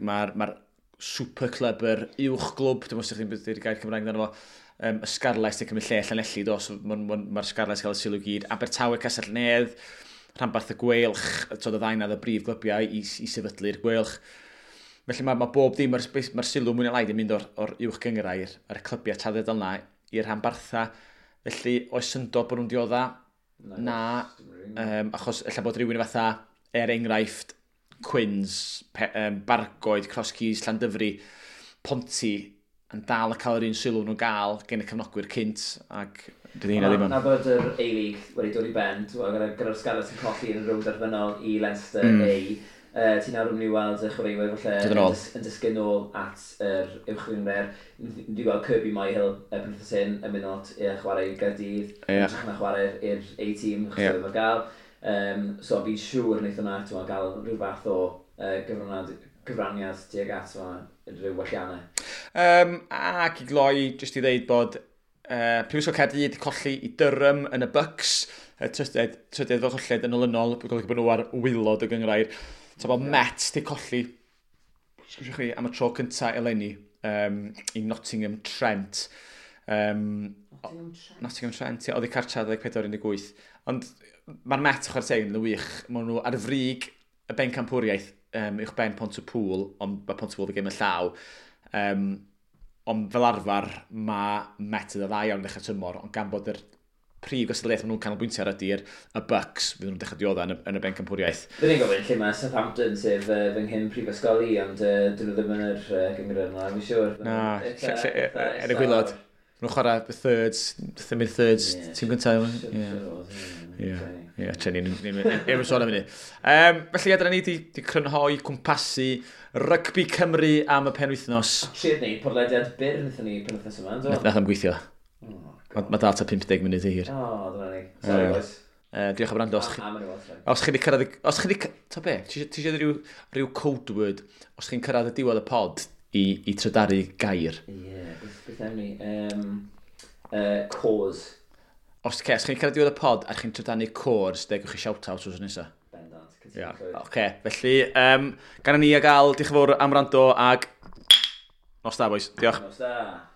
ma'r super club, yr uwch glwb, dwi'n meddwl os ydych chi'n dweud gair Cymraeg amdano fo, y Scarlets yn cymryd lle Llanelli, do, so ma'r Scarlets cael y sylw gyd. Abertawe, Castell Nedd, rhanbarth y Gweilch, t'wod, y ddau 'na oedd y brif glybiau i sefydlu'r Gweilch. Felly mae bob dim, mae'r sylw mwy neu lai 'di mynd o'r uwch gynghrair, ar y clybiau traddodiadol 'na i'r rhanbarthau. Felly, oes syndod bod nhw'n diodda? Na, Na, dim rili. achos ella bod rhywun fatha Er enghraifft, Quins, Bargoed, Cross Keys, Llandyfri, Ponty, yn dal y cael yr un sylw nhw'n gael gen y cefnogwyr cynt, ac dydy hynna ddim yn. Na bod yr A-League wedi dod i ben, gyda'r Scarlets yn colli yn y rownd derfynol i Leinster A, ti'n nawr yn mynd i weld y chwaraewyr falle yn disgyn nôl at yr uwch gynghrair. Ni wedi gweld Kirby Myhill y penwythnos hyn yn mynd lot i chwarae i Gaerdydd, yn hytrach na chwarae i'r A-team, achos oedd ddim ar gael. So fi'n siŵr wneith hwnna, ti'n gael rhyw fath o gyfraniad tuag at rhyw welliannau. Ac i gloi, jyst i ddeud bod Prifysgol Caerdydd wedi colli i Durham yn y Bucks, y trydydd fel colled yn olynol, golygu bod nhw ar waelod y gynghrair. So bod Met wedi colli, sgwrsio chi, am y tro cyntaf eleni i Nottingham Trent. Nottingham Trent? Nottingham Trent, ie, oedd i cartra 24-18. Ond mae'r Met, chwarae teg, yn wych. Maen nhw ar frig y bencampwriaeth uwch ben Pontypool, ond mae Pontypool wedi gêm y llaw. Ond fel arfer, mae Met yn dda iawn ddechrau tymor, ond gan bod yr prif gystadleuaeth maen nhw'n canolbwyntio ar ydy'r y Bucks, fydd nhw'n dechrau diodda yn y bencampwriaeth. Fy ni'n gofyn lle mae Southampton, sef fy nghyn prifysgol i, ond dyn nhw ddim yn yr gynghrair yna, fi'n siŵr. Na, er y gwaelod. Maen nhw'n chwarae the thirds, the mid-thirds, tîm gyntaf. Ie, tre ni'n efo sôn am hynny. Felly, dyna ni di crynhoi cwmpasu Rygbi Cymru am y penwythnos. Trio gwneud podlediad byr wnaethon ni penwythnos yma, ynddo? Nath am gweithio. Mae dal ta 50 munud i hir. O, dyna ni. Sorry, boys. Diolch am wrando. Os chi wedi cyrraedd. Os chi wedi... Ta be? Ti eisiau rhyw code word? Os chi'n cyrraedd y diwedd y pod i trydaru gair? Ie, beth am ni? Cause. Os chi'n cyrraedd diwedd y pod a chi'n trydanu cors, degwch chi shout-out wrth nesaf. Bendant. Ie, oce. Felly, gan ni a gael, diolch yn fawr am wrando ag nos da, boys. Diolch. Nos da.